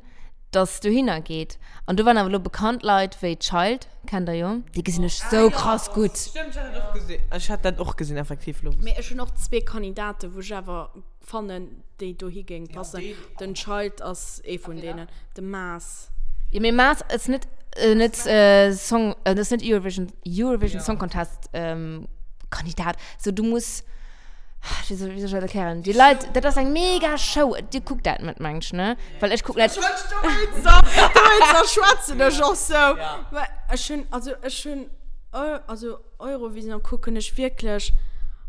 dass dohinner geet. An do waren awer elo bekannt Leit wéi Child, kennt der jo, déi gesinn ech sou krass gutt. Stëmmt, ech hat dat och gesinn. Ech hat dat och gesinn, effektiv elo. Mee ech hunn och zwee Kandidaten, wou ech awer fannen, déi dohi géing passen. Den Child ass ee vun deenen. De Maas. Jo, mee Maas ass net, net Song, ass net Eurovision, Eurovision Song Contest Kandidat. Sou, du muss. Wéi soll, wéi soll ech dat erklären? Déi Leit, dat ass eng mega Show. Dir kuckt dat net, mengt ech, ne? Well ech kucken dat. Dowéinster schwätzen ech och sou. Well ech hunn, also ech hunn, also Eurovision kucken ech wierklech,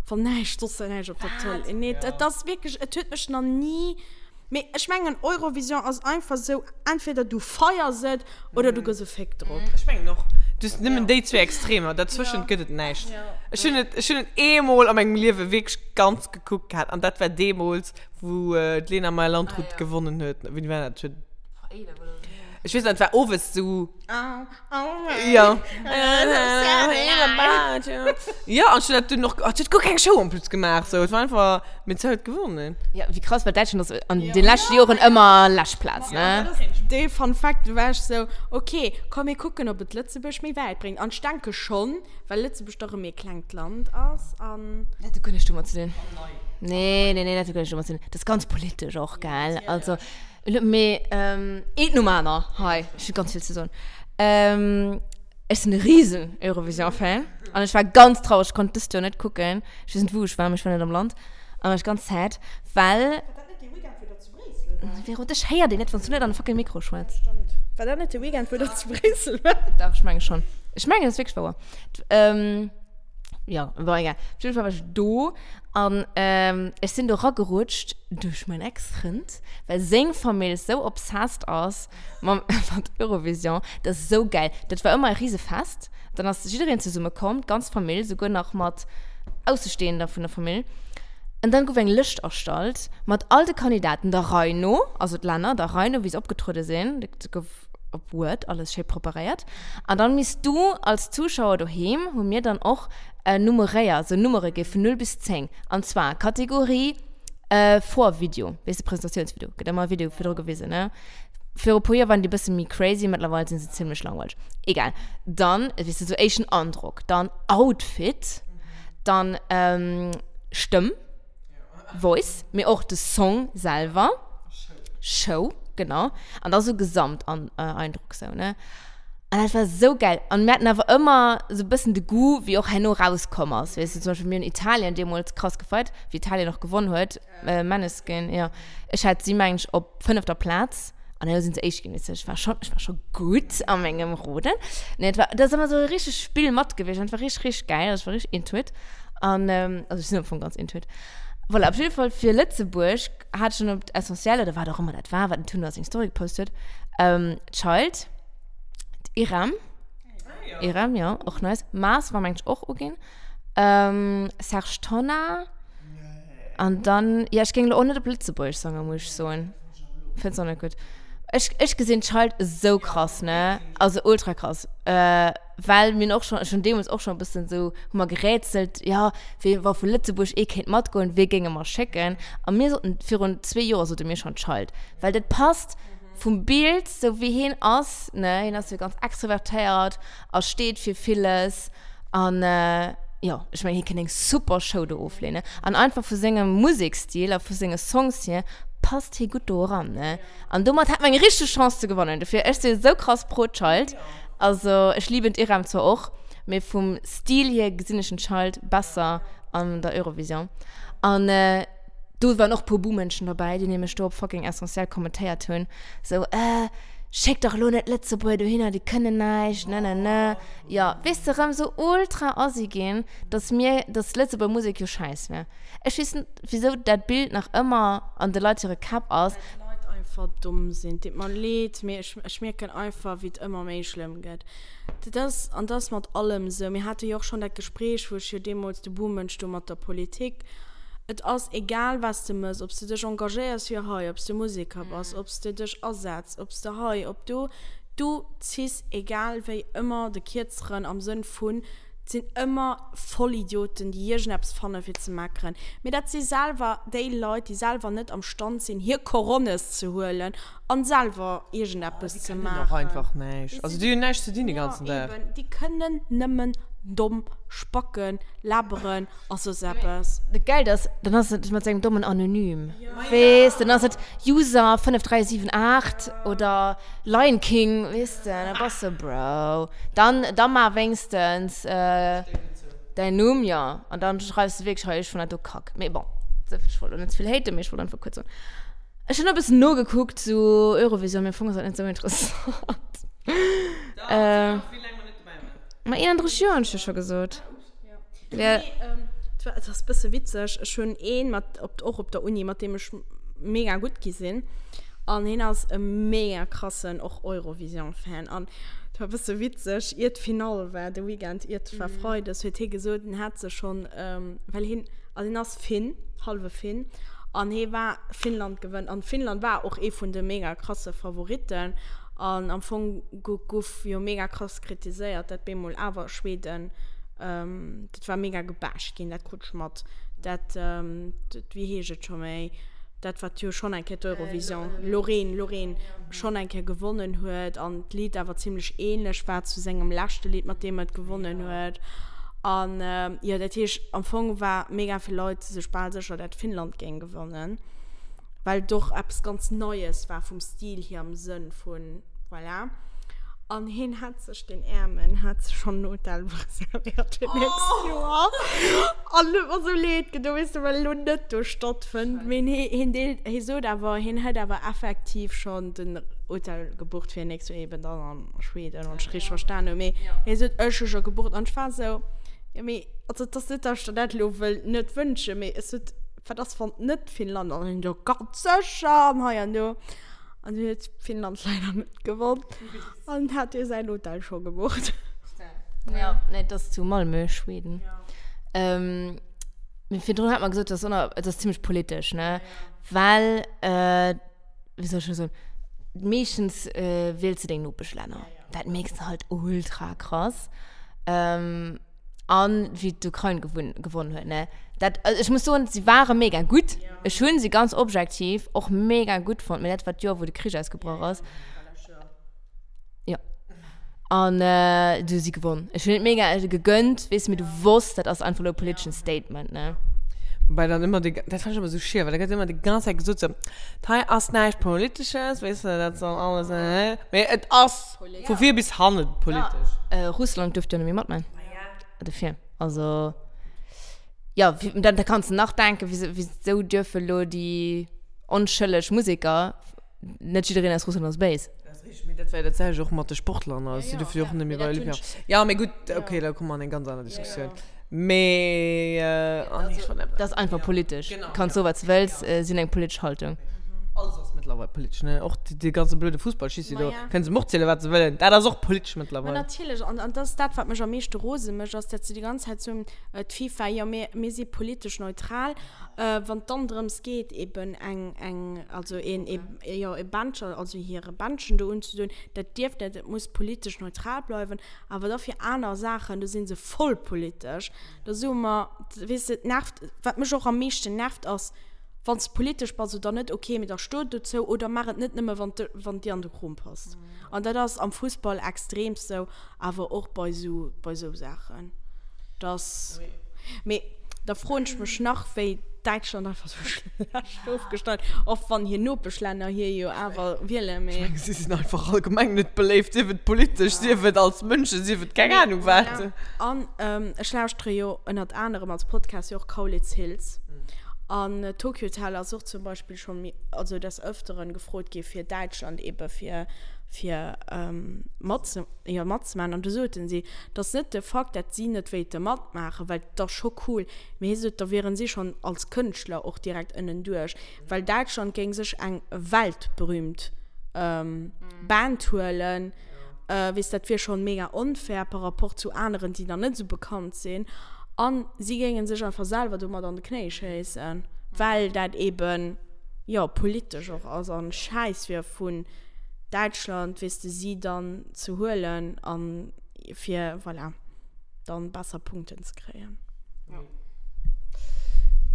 wann näischt soss näischt op der Tëlee. Nee, et ass wierklech, et huet mech nach ni. Mee ech mengen Eurovision ass einfach sou, entweder du feiers et oder du gëss e Féck drop. Ech mengen och. Du hues nëmmen déi zwee Extremer, dazwëschent gëtt et näischt. Ech hunn et, ech hunn et eemol a mengem Liewe wierklech ganz gekuckt gehat an dat war deemools, wou d'Lena Meyer-Landrut gewonnen huet. Wéini war dat? Ech weess nach, et war owes sou. Ja. Ja, an ech hunn dat dunn och, et huet guer keng Show en plus gemaach, sou. Et war einfach, mee se huet gewonnen. Ja, wéi krass, well Däitschland ass an de leschte Joren ëmmer lescht Plaz, ne? Dee Fun Fact, do war ech sou, ok, komm mir kucken, ob et Lëtzebuerg méi wäit bréngt. An ech denke schonn, well Lëtzebuerg dach e méi klengt Land ass an. Dat huet guer näischt domat ze dinn. Nee, nee, nee, dat huet guer näischt domat ze dinn. Dat ass ganz politesch och, gell? Also. Mee eent nom aner hei, ech hu ganz vill ze soen. Ech sinn e risen Eurovision-Fan an ech war ganz traureg, ech konnt dëst Joer net kucken. Ech weess net wou ech war, mee ech war net am Land an war ech ganz sad, well. War dat net dee Weekend wou der zu Bréissel waart? Vero, dech héiert een net, wann s du net an de fucking Mikro schwätz. Stëmmt. War dat net de Weekend wou der zu Bréissel waart? Dach, ech menge schonn. Ech mengen, dat ass wierklech wouer. Jo, bon, egal. Op jidde Fall war ech do an ech sinn do ragerutscht duerch mäin Ex-Frënd, well seng Famill sou obsessed ass mam mat Eurovision. Dat ass sou gäil. Dat war ëmmer e Risefest. Dann ass jiddereen zesumme komm, d'ganz Famill, souguer nach mat Aussestehender vun der Famill. An dann gouf eng Lëscht erstallt mat all de Kandidaten der Rei no, also d'Länner der Rei no, wéi se opgetruede sinn. Dat gouf op Word alles schéi preparéiert. An dann misst du als Zuschauer doheem, hu mir dann och nummeréiert, sou Nummere gi vun 0 bis 10. An zwar Kategorie Vorvideo, weess de, Presentatiounsvideo, gëtt ëmmer e Video virdru gewisen, ne? Viru puer Joer waren déi bësse méi crazy, mëttlerweil sinn se zimlech langweileg. Egal. Dann, weess de, sou éischten Androck, dann Outfit, dann Stëmm. Voice, mee och de Song selwer. Show. Show, genau. An da sou Gesamteindruck sou, ne? An dat war sou geil. An mir haten awer ëmmer sou bëssen de Goût, wéi och herno rauskomm ass, weess de. Zum Beispill mir hunn Italien deemools krass gefeiert, wéi Italien och gewonn huet, Maneskin, jo. Ech hat si, mengen ech, op fënnefter Plaz. An herno sinn se éischt ginn, weess de. Ech war schonn, ech war scho gutt a mengem Roden. Nee, et war, dat ass ëmmer sou e richtegt Spill mat gewiescht an et war richteg, richteg geil. Also ech war richteg into it. An, also ech sinn am Fong ganz into it. Voilà, op jidde Fall fir Lëtzebuerg hat ech dann op Essentiel, oder wat och ëmmer dat war, wat den Tun a seng Story gepost huet, Child, d'Irem, Irem, jo, och nice, Mars war mengen ech och uginn, Serge Tonnar, an dann, jo, ech géing elo och net op Lëtzebuergesch sangen, muss ech soen. Fënns och net gutt? Ech, ech gesinn Child esou krass, ne? Also ultra krass. Well mir hunn och schonn, ech hunn deemools och schonn e bëssen esou, hu mer gerätselt, jo, wee, wa vu Lëtzebuerg ee kéint matgoen, wee géinge mer schécken? A mir soten, virun zwee Joer sote mir schonn Child. Well dat passt vum Bild, sou wéi hien ass, ne, hien ass jo ganz extrovertéiert a steet fir villes an, jo, ech mengen, hie kéint eng super Show do ofleeën, ne? An einfach vu sengem Musekstil a vu senge Songs hier passt hie gutt do eran, ne? An domat hätt mer eng richteg Chance ze gewannen. Dofir, ech si sou krass pro Child. Also, ech liben d'Irem zwar och, mee vum Stil hier gesinn ech den Child besser an der Eurovision. An do waren och puer Buhmënschen dobäi, déi nämlech do op fucking Essentiel kommentéiert hunn, sou, äh, schéck dach elo net Lëtzebuerger dohinner, déi kënnen näischt, ne ne ne. Jo, weess de, rëm sou ultra assi ginn, dass mir, dass Lëtzebuerger Musek jo schäiss wär. Ech weess net, wisou dat Bild nach ëmmer an de Leit hire Käpp ass. Well d'Leit einfach domm sinn. Et deet mer leed, mee ech, ech mierken einfach, wéi et ëmmer méi schlëmm gëtt. Dat ass, an dat ass mat allem esou. Mir hate jo och schonn dat Gespréich, wou ech jo deemools de Buhmënsch do mat der Politik. Et ass egal, wat s de mëss, ob s de dech engagéiers fir hei, ob s de Museker bass, ob s de dech asetz, ob s de hei, ob do, du ziss egal wéi ëmmer de Kierzeren am Sënn vun, Et sinn ëmmer Vollidioten, déi iergendeppes fanne fir ze meckeren. Mee dat si selwer déi Leit, déi selwer net am Stand sinn, hir Coronnes ze huelen an selwer iergendeppes ze maachen. Déi kënnen och einfach näischt. Also déi hunn näischt ze dinn de ganzen Dag. Ja, eben. Déi kënnen nëmmen domm spacken, laberen a soss eppes. Dat Gäilt ass, dann ass et mat sengem dommen Anonym. Weess, dann ass et User 5378 oder Lion King, weess de, da bass de Bro. Dann, da mar wéinstens däin Numm, jo, an dann schreifs de wierklech hei, ech fannen dat do kack. Mee bon, ech wollt elo net ze vill haten, mee ech wollt einfach kuerz soen. Ech hunn e bëssen nogekuckt, sou Eurovision, mee am Fong ass dat net sou interessant. Ma 31 Joer hunn ech jo scho gesot. Ja. Nee, ähm, et ass bësse witzeg. Ech hunn een mat op och op der Uni, mat deem ech mega gutt gi sinn. An hien ass e mega krassen och Eurovision-Fan. An. Dat war e bësse witzeg, ier d'Finall war, de Weekend iert war Freides, huet hie gesot, en hätt sech schonn, well hien, also hien ass Finn, hallwe Finn, an hie war, Finnland gewënnt, an Finnland war och ee vun de mega krasse Favoritten, an am Fong guff jo mega krass kritiséiert, dat bemol awer Schweden, dat war mega gebasht ginn, dat krut ech mat, dat, wéi heescht et scho méi? dat wat jo schonn eng Kéier d'Eurovision, Loreen, Loreen, schonn eng Kéier gewonnen huet an d'Lidd awer zimlech ähnlech war zu sengem leschte Lidd, mat deem et gewonnen huet. An jo, dat heescht am Fong war mega vill Leit sech bal sécher, dat Finnland géing gewannen, well et och eppes ganz Neies war vum Stil hier am Sënn vun, voilà. An hien hat sech, den Äermen, hat sech schonn en Hotel reservéiert fir d'nächst Joer. An huet mer sou leed gedoen, weess de, well elo net do stattfënnt. Mee hien deelt, hie sot awer, hien hätt awer effektiv schonn den Hotel gebucht fir nächst Joer, eben dann an Schweden, wann ech richteg verstan hunn. Mee hie sot, ech hu scho gebucht. An ech war sou, jo mee, also et ass net, datt ech der dat elo wëll net wënschen, mee ech sot, wat ass, wann net Finnland? An hien, jo ganz sécher an hei an do. An dunn huet Finnland leider net gewonn. An hat hie säin Hotel scho gebucht. Ja, nee, dat ass zu Malmö, Schweden. Ja. Ähm, mee virdrun hat mer gesot, dat ass, dat ass zimmlech politesch, ne? Well, äh, wéi soll ech dat soen, meeschtens äh, wiels de deng Nopeschlänner. Dat mierks de halt ultra krass. Ähm, An wéi d'Ukrain gewunn, gewonnen huet, ne? Dat, also ech muss soen, si ware mega gutt. Ech hunn si ganz objektiv och mega gutt fonnt, mee dat war d'Joer, wou de Krich ausgebrach ass. Jo. An du hu si gewonn. Ech hunn et mega gegönnt, weess de, mee du wosst, dat ass einfach elo e politeschen Statement, ne? Wobei dann ëmmer déi, dat fannt ech ëmmer esou schier, well da gëtt ëmmer déi ganz Zäit gesot, sou, hei ass näischt Politesches, weess de, dat ass dann alles, mee et ass. Vu vir bis hannen politesch. Ja, Russland duerft jo net méi matman. Dofir, also, ja, dann da kanns de nach denken, wieso, wieso dürfe lo déi onschëlleg Museker, net jiddereen aus Russland ass béis. Dat ass richteg, mee dat war jo dat selwecht och mat de Sportler, ne, si duerfe jo och net méi bei Olympia. Ja, mee gutt, okay, da komme mer an eng ganz aner Diskussioun. Mee, oh nee, ech wollt Dat ass einfach politesch. Kanns soe wat s de wëlls, si hunn eng politesch Haltung. Alles ass mëttlerweil politesch, ne? Och dee ganze blöde Fussballschissi do. Kënne se och zielen, wat se wëllen. Dat ass och politesch mëttlerweil. Ma natierlech. An, an dat ass dat, wat mech am meeschte rose mécht, ass, dat se déi ganz Zäit soen, d'FIFA, jo, mir, mir si politesch neutral. Wann et dann drëms geet, eben eng, eng, also een, ee, jo, e Bändchen, also hire Bändchen do unzedoen, dat dierf net, et muss politesch neutral bleiwen. Awer da fir aner Saachen, do si se voll politesch. Da soe mer, weess de, et nervt, wat mech och am meeschten nervt, ass, wann s de politesch bass oder net, okay, mee da sto dozou oder maach et net nëmme, wann wann et dir an de Krom passt. An dat ass am Fussball extreemst sou, awer och bei sou, bei sou Saachen. Dass, mee da froen ech mech nach, wéi Däitschland einfach sou schlecht ofgeschneit, och wann hir Nopeschlänner hie jo awer wielen, mee. Ech mengen, si sinn einfach allgemeng net beléift, sief et politesch, sief et als Mënschen, sief et keng Ahnung wat. An ech lauschtere jo ënnert anerem als Podcast jo och Kaulitz Hills. An Tokio Hotel ass och zum Beispill scho méi, also des Ëfteren gefrot gi fir Däitschland ebe fir, fir matze, jo matzemaachen. An du soten si, dass net de Fakt, dat si net wéilte matmaachen, well et ass scho cool, Mee hie sot, da wieren si schonn als Kënschtler och direkt ënnenduerch, well Däitschland géing sech eng weltberühmt Band huelen. Weess, dat wier schonn mega onfair par rapport zu aneren, déi dann net esou bekannt sinn. A si géinge sech einfach selwer domat an de Knéi schéissen, well dat eeben, jo, politesch och ass an Schäiss wier vun Däitschland, weess de, si dann ze huelen a fir, voilà. dann besser Punkten ze kréien. Ja.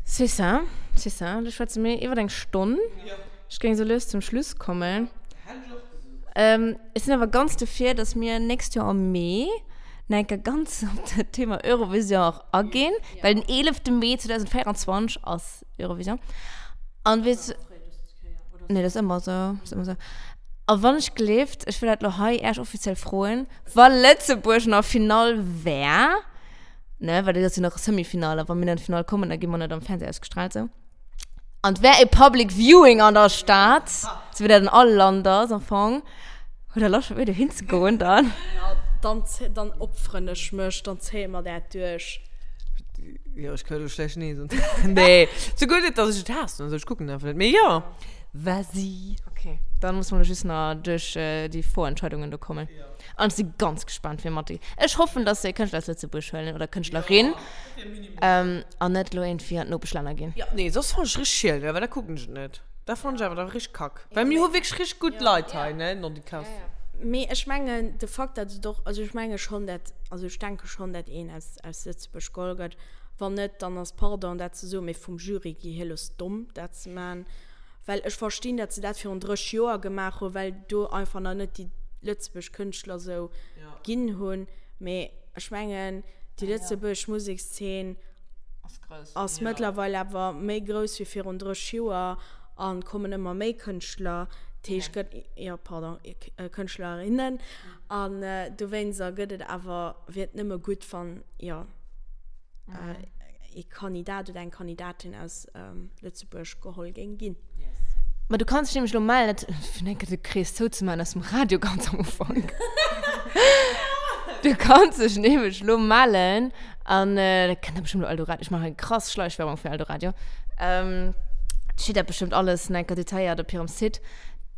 C'est ça, c'est ça. Da schwätze mir iwwer eng Stonn. Ja. Ech géing sou lues zum Schluss kommen. Hätt ech och gesot. Ähm, ech sinn awer ganz dofir, dass mir nächst Joer am Mee nach eng Kéier ganz op dat Thema Eurovision och aginn, ja. well den 11. Mee 2024 ass Eurovision. An weess, nee, dat ass ëmmer sou, ass ëmmer sou. A wann ech gleeft, ech wëll dat lo hei Äech offiziell froen, wa Lëtzebuerg an der Finall wär, ne, well dat ass jo nach e Semi-Finale, a wa mir an d'Finall kommen, da gi mer net am Fernseh ausgestrahlt, sou. An et wär e Public Viewing an der Stad, sou wéi dat an all Land ass am Fong, hutt Der Loscht mat mir dohin ze goen dann? Ja, dann, dann opferen ech mech, dann zéie mer dat duerch. Jo, ech ka lo schlecht nee soen. Nee, souguer net, dass ech et haassen oder sou, ech kucken einfach net. Mee jo. Vas-y. Okay, dann muss mer lo just nach duerch déi Vorentscheidungen do kommen. An ech si ganz gespannt, wie mat. Ech hoffen, dass se e Kënschtler aus Lëtzebuerg huelen oder Kënschtlerin. An net lo iergendwéi an d'Nopeschlänner ginn. Jo, nee, soss fannen ech richteg schiel, well da kucken ech et net. Da fannen ech awer da richteg kack. Well mir hu wierklech richteg gutt Leit hei, ne, Nondikass. Mee ech mengen, de Fakt, dat et och, also ech menge schonn, dat, also ech denke schonn, dat een aus, aus Lëtzebuerg geholl gëtt. Wann net, dann ass, pardon, dat ze soen, mee vum Jury gi hielos domm, dat ze man. Well ech verstinn, dat se dat virun 30 Joer gemaach hunn, well do einfach nach net déi lëtzebuerg Kënschtler sou ginn hunn. Mee ech mengen, déi lëtzebuerg Musekszeen ass mëttlerweil awer méi grouss wéi virun 30 Joer a kommen ëmmer méi Kënschtler. Dat heescht, gëtt, jo, pardon, Kënschtlerinnen. An dowéinster gëtt et awer, wier et nëmme gutt, wann, jo, ee Kandidat oder eng Kandidatin aus Lëtzebuerg geholl géing ginn. Ma du kanns dech nämlech elo mellen, dat, fir eng Kéier de Krees zouzemaachen aus dem Radio ganz am Ufank. Du kanns dech nämlech elo mellen an dat kennt der bestimmt elo Eldoradio, ech maachen krass Schleichwerbung fir Eldoradio, steet dat bestimmt alles nach eng Kéier detailléiert op hirem Site.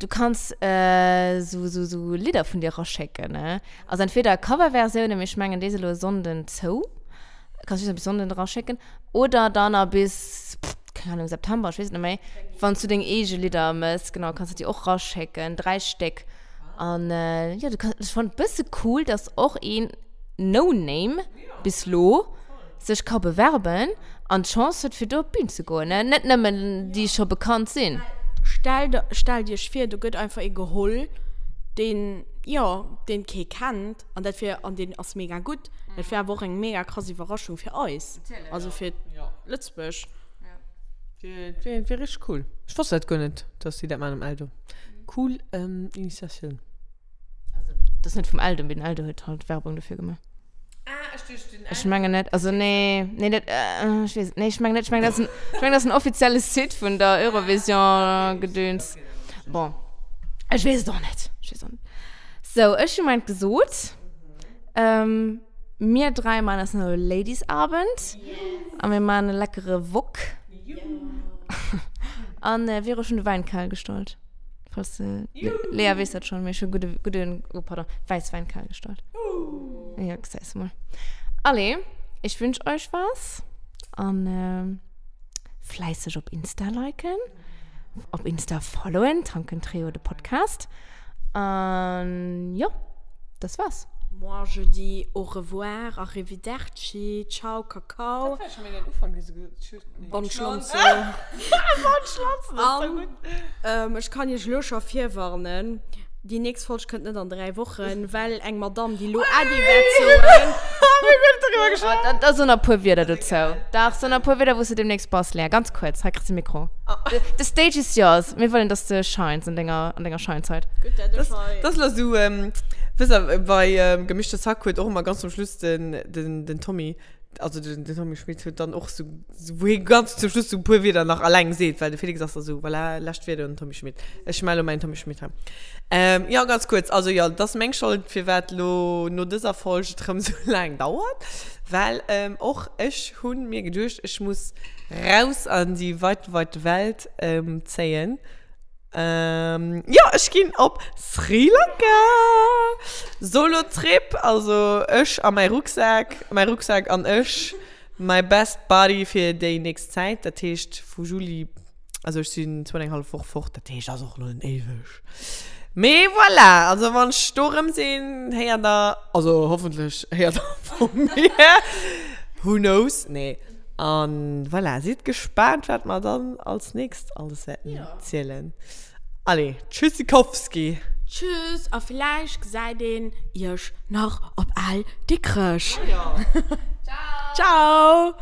Du kanns esou, esou, esou Lidder vun dir eraschécken, ne? Also entweder Coverversiounen, mee ech mengen déi si elo e Sonnden zou. Kanns just nach bis Sonnden eraschécken. Oder dann nach bis, keng Ahnung, September, ech weess et net méi, wann s du deng eege Lidder mëss, genau, kanns du déi och raschécken, 3 Stéck. An jo, du kanns, ech fannen et bësse cool, dass och een No-Name bis lo sech ka bewerben an d'Chance huet, fir do op d'Bün ze goen, ne? Net nëmmen déi scho bekannt sinn. Stellt, stellt iech vir, do gëtt einfach ee geholl, deen, jo, deen kee kennt, an dat wier, an deen ass mega gutt. Dat wier awer och eng mega krass Iwwerraschung fir eis, also fir Lëtzebuerg. Dat wier richteg cool. Ech wosst dat guer net, dass déi dat maachen um Eldo. Cool Initiatioun. Also, dat ass net vum Eldo, mee den Eldo huet halt Werbung dofir gemaach. Ah, ech duecht den Ech mengen net, also nee, nee, dat, äh, ech weess et, nee, ech mengen net, ech mengen dat ass en, ech mengen dat ass en offizielle Site vun der Eurovision-Gedöns. Bon, ech weess et och net, ech weess och net. Sou, ech hu mäint gesot. Ähm, mir dräi maachen eis nach e Ladies-Abend a mir maachen e leckere Wok. An Vero, ech hunn de Wäin kal gestallt. Falls du, Lea weess dat schon, mee ech hu gudde, gudden, oh pardon, Wäisswäin kal gestallt. Ja, gesäis du mol. Allez, ich wünsch euch was an fläisseg op Insta liken, op Insta followen, Tanken Trio, de Podcast. An jo, das war's. Moi je dis au revoir, arrivederci, ciao cacao. Dat war schon méi den Ufank, wéi se gesot huet. Bonne Schlonzo. Bonne Schlonzo, das ist so gutt. An ech kann iech elo scho virwarnen, déi nächst Folg kënnt net an 3 Wochen, well eng Madame, déi elo Äddi wäert soen. Mir hunn guer net doriwwer geschwat. Da, da so nach e puer Wierder dozou. Dach, so nach e puer Wierder, wou s du demnächst bass, Lea. Ganz kuerz, hei kriss de Mikro. The, the stage is yours. Mir wëllen, dass de shines an denger, an denger Scheinzeit. Gutt, dat ech hei. Das ass lo sou, wësst der, bei Gemischtes Hack huet och ëmmer ganz zum Schluss den, den, den Tommy, also den, den Tommy Schmitt huet dann och sou, wou hie ganz zum Schluss sou e puer Wierder nach alleng seet, well de Felix ass da sou, voilà, lescht Wierder un den Tommy Schmitt. Ech melle mäin Tommy Schmitt hei. Ähm, jo, ganz kuerz, also jo, et ass meng Schold, firwat lo no dëser Folg et rëm sou laang dauert, well och ech hu mir geduecht, ech muss raus an déi weite, weite Welt zéien. Ähm, jo, ech ginn op Sri Lanka! Solo-Trip, also ech a mäi Rucksak, mäi Rucksak an ech, my best buddy fir déi nächst Zäit. Dat heescht vu Juli, also ech sinn zwou an eng hallef Woch fort, dat heescht ass och elo net éiweg. Mee voilà, also wann ech do erëm sinn, héiert der, also hoffentlech héiert der vu mir, who knows, nee. An voilà, sidd gespaant, wat mer dann als nächst alles wäerten zielen. Allez, Tschüssikowski! Tschüss a villäicht gesäit een iech nach op Al Dikrech. Ciao! Ciao!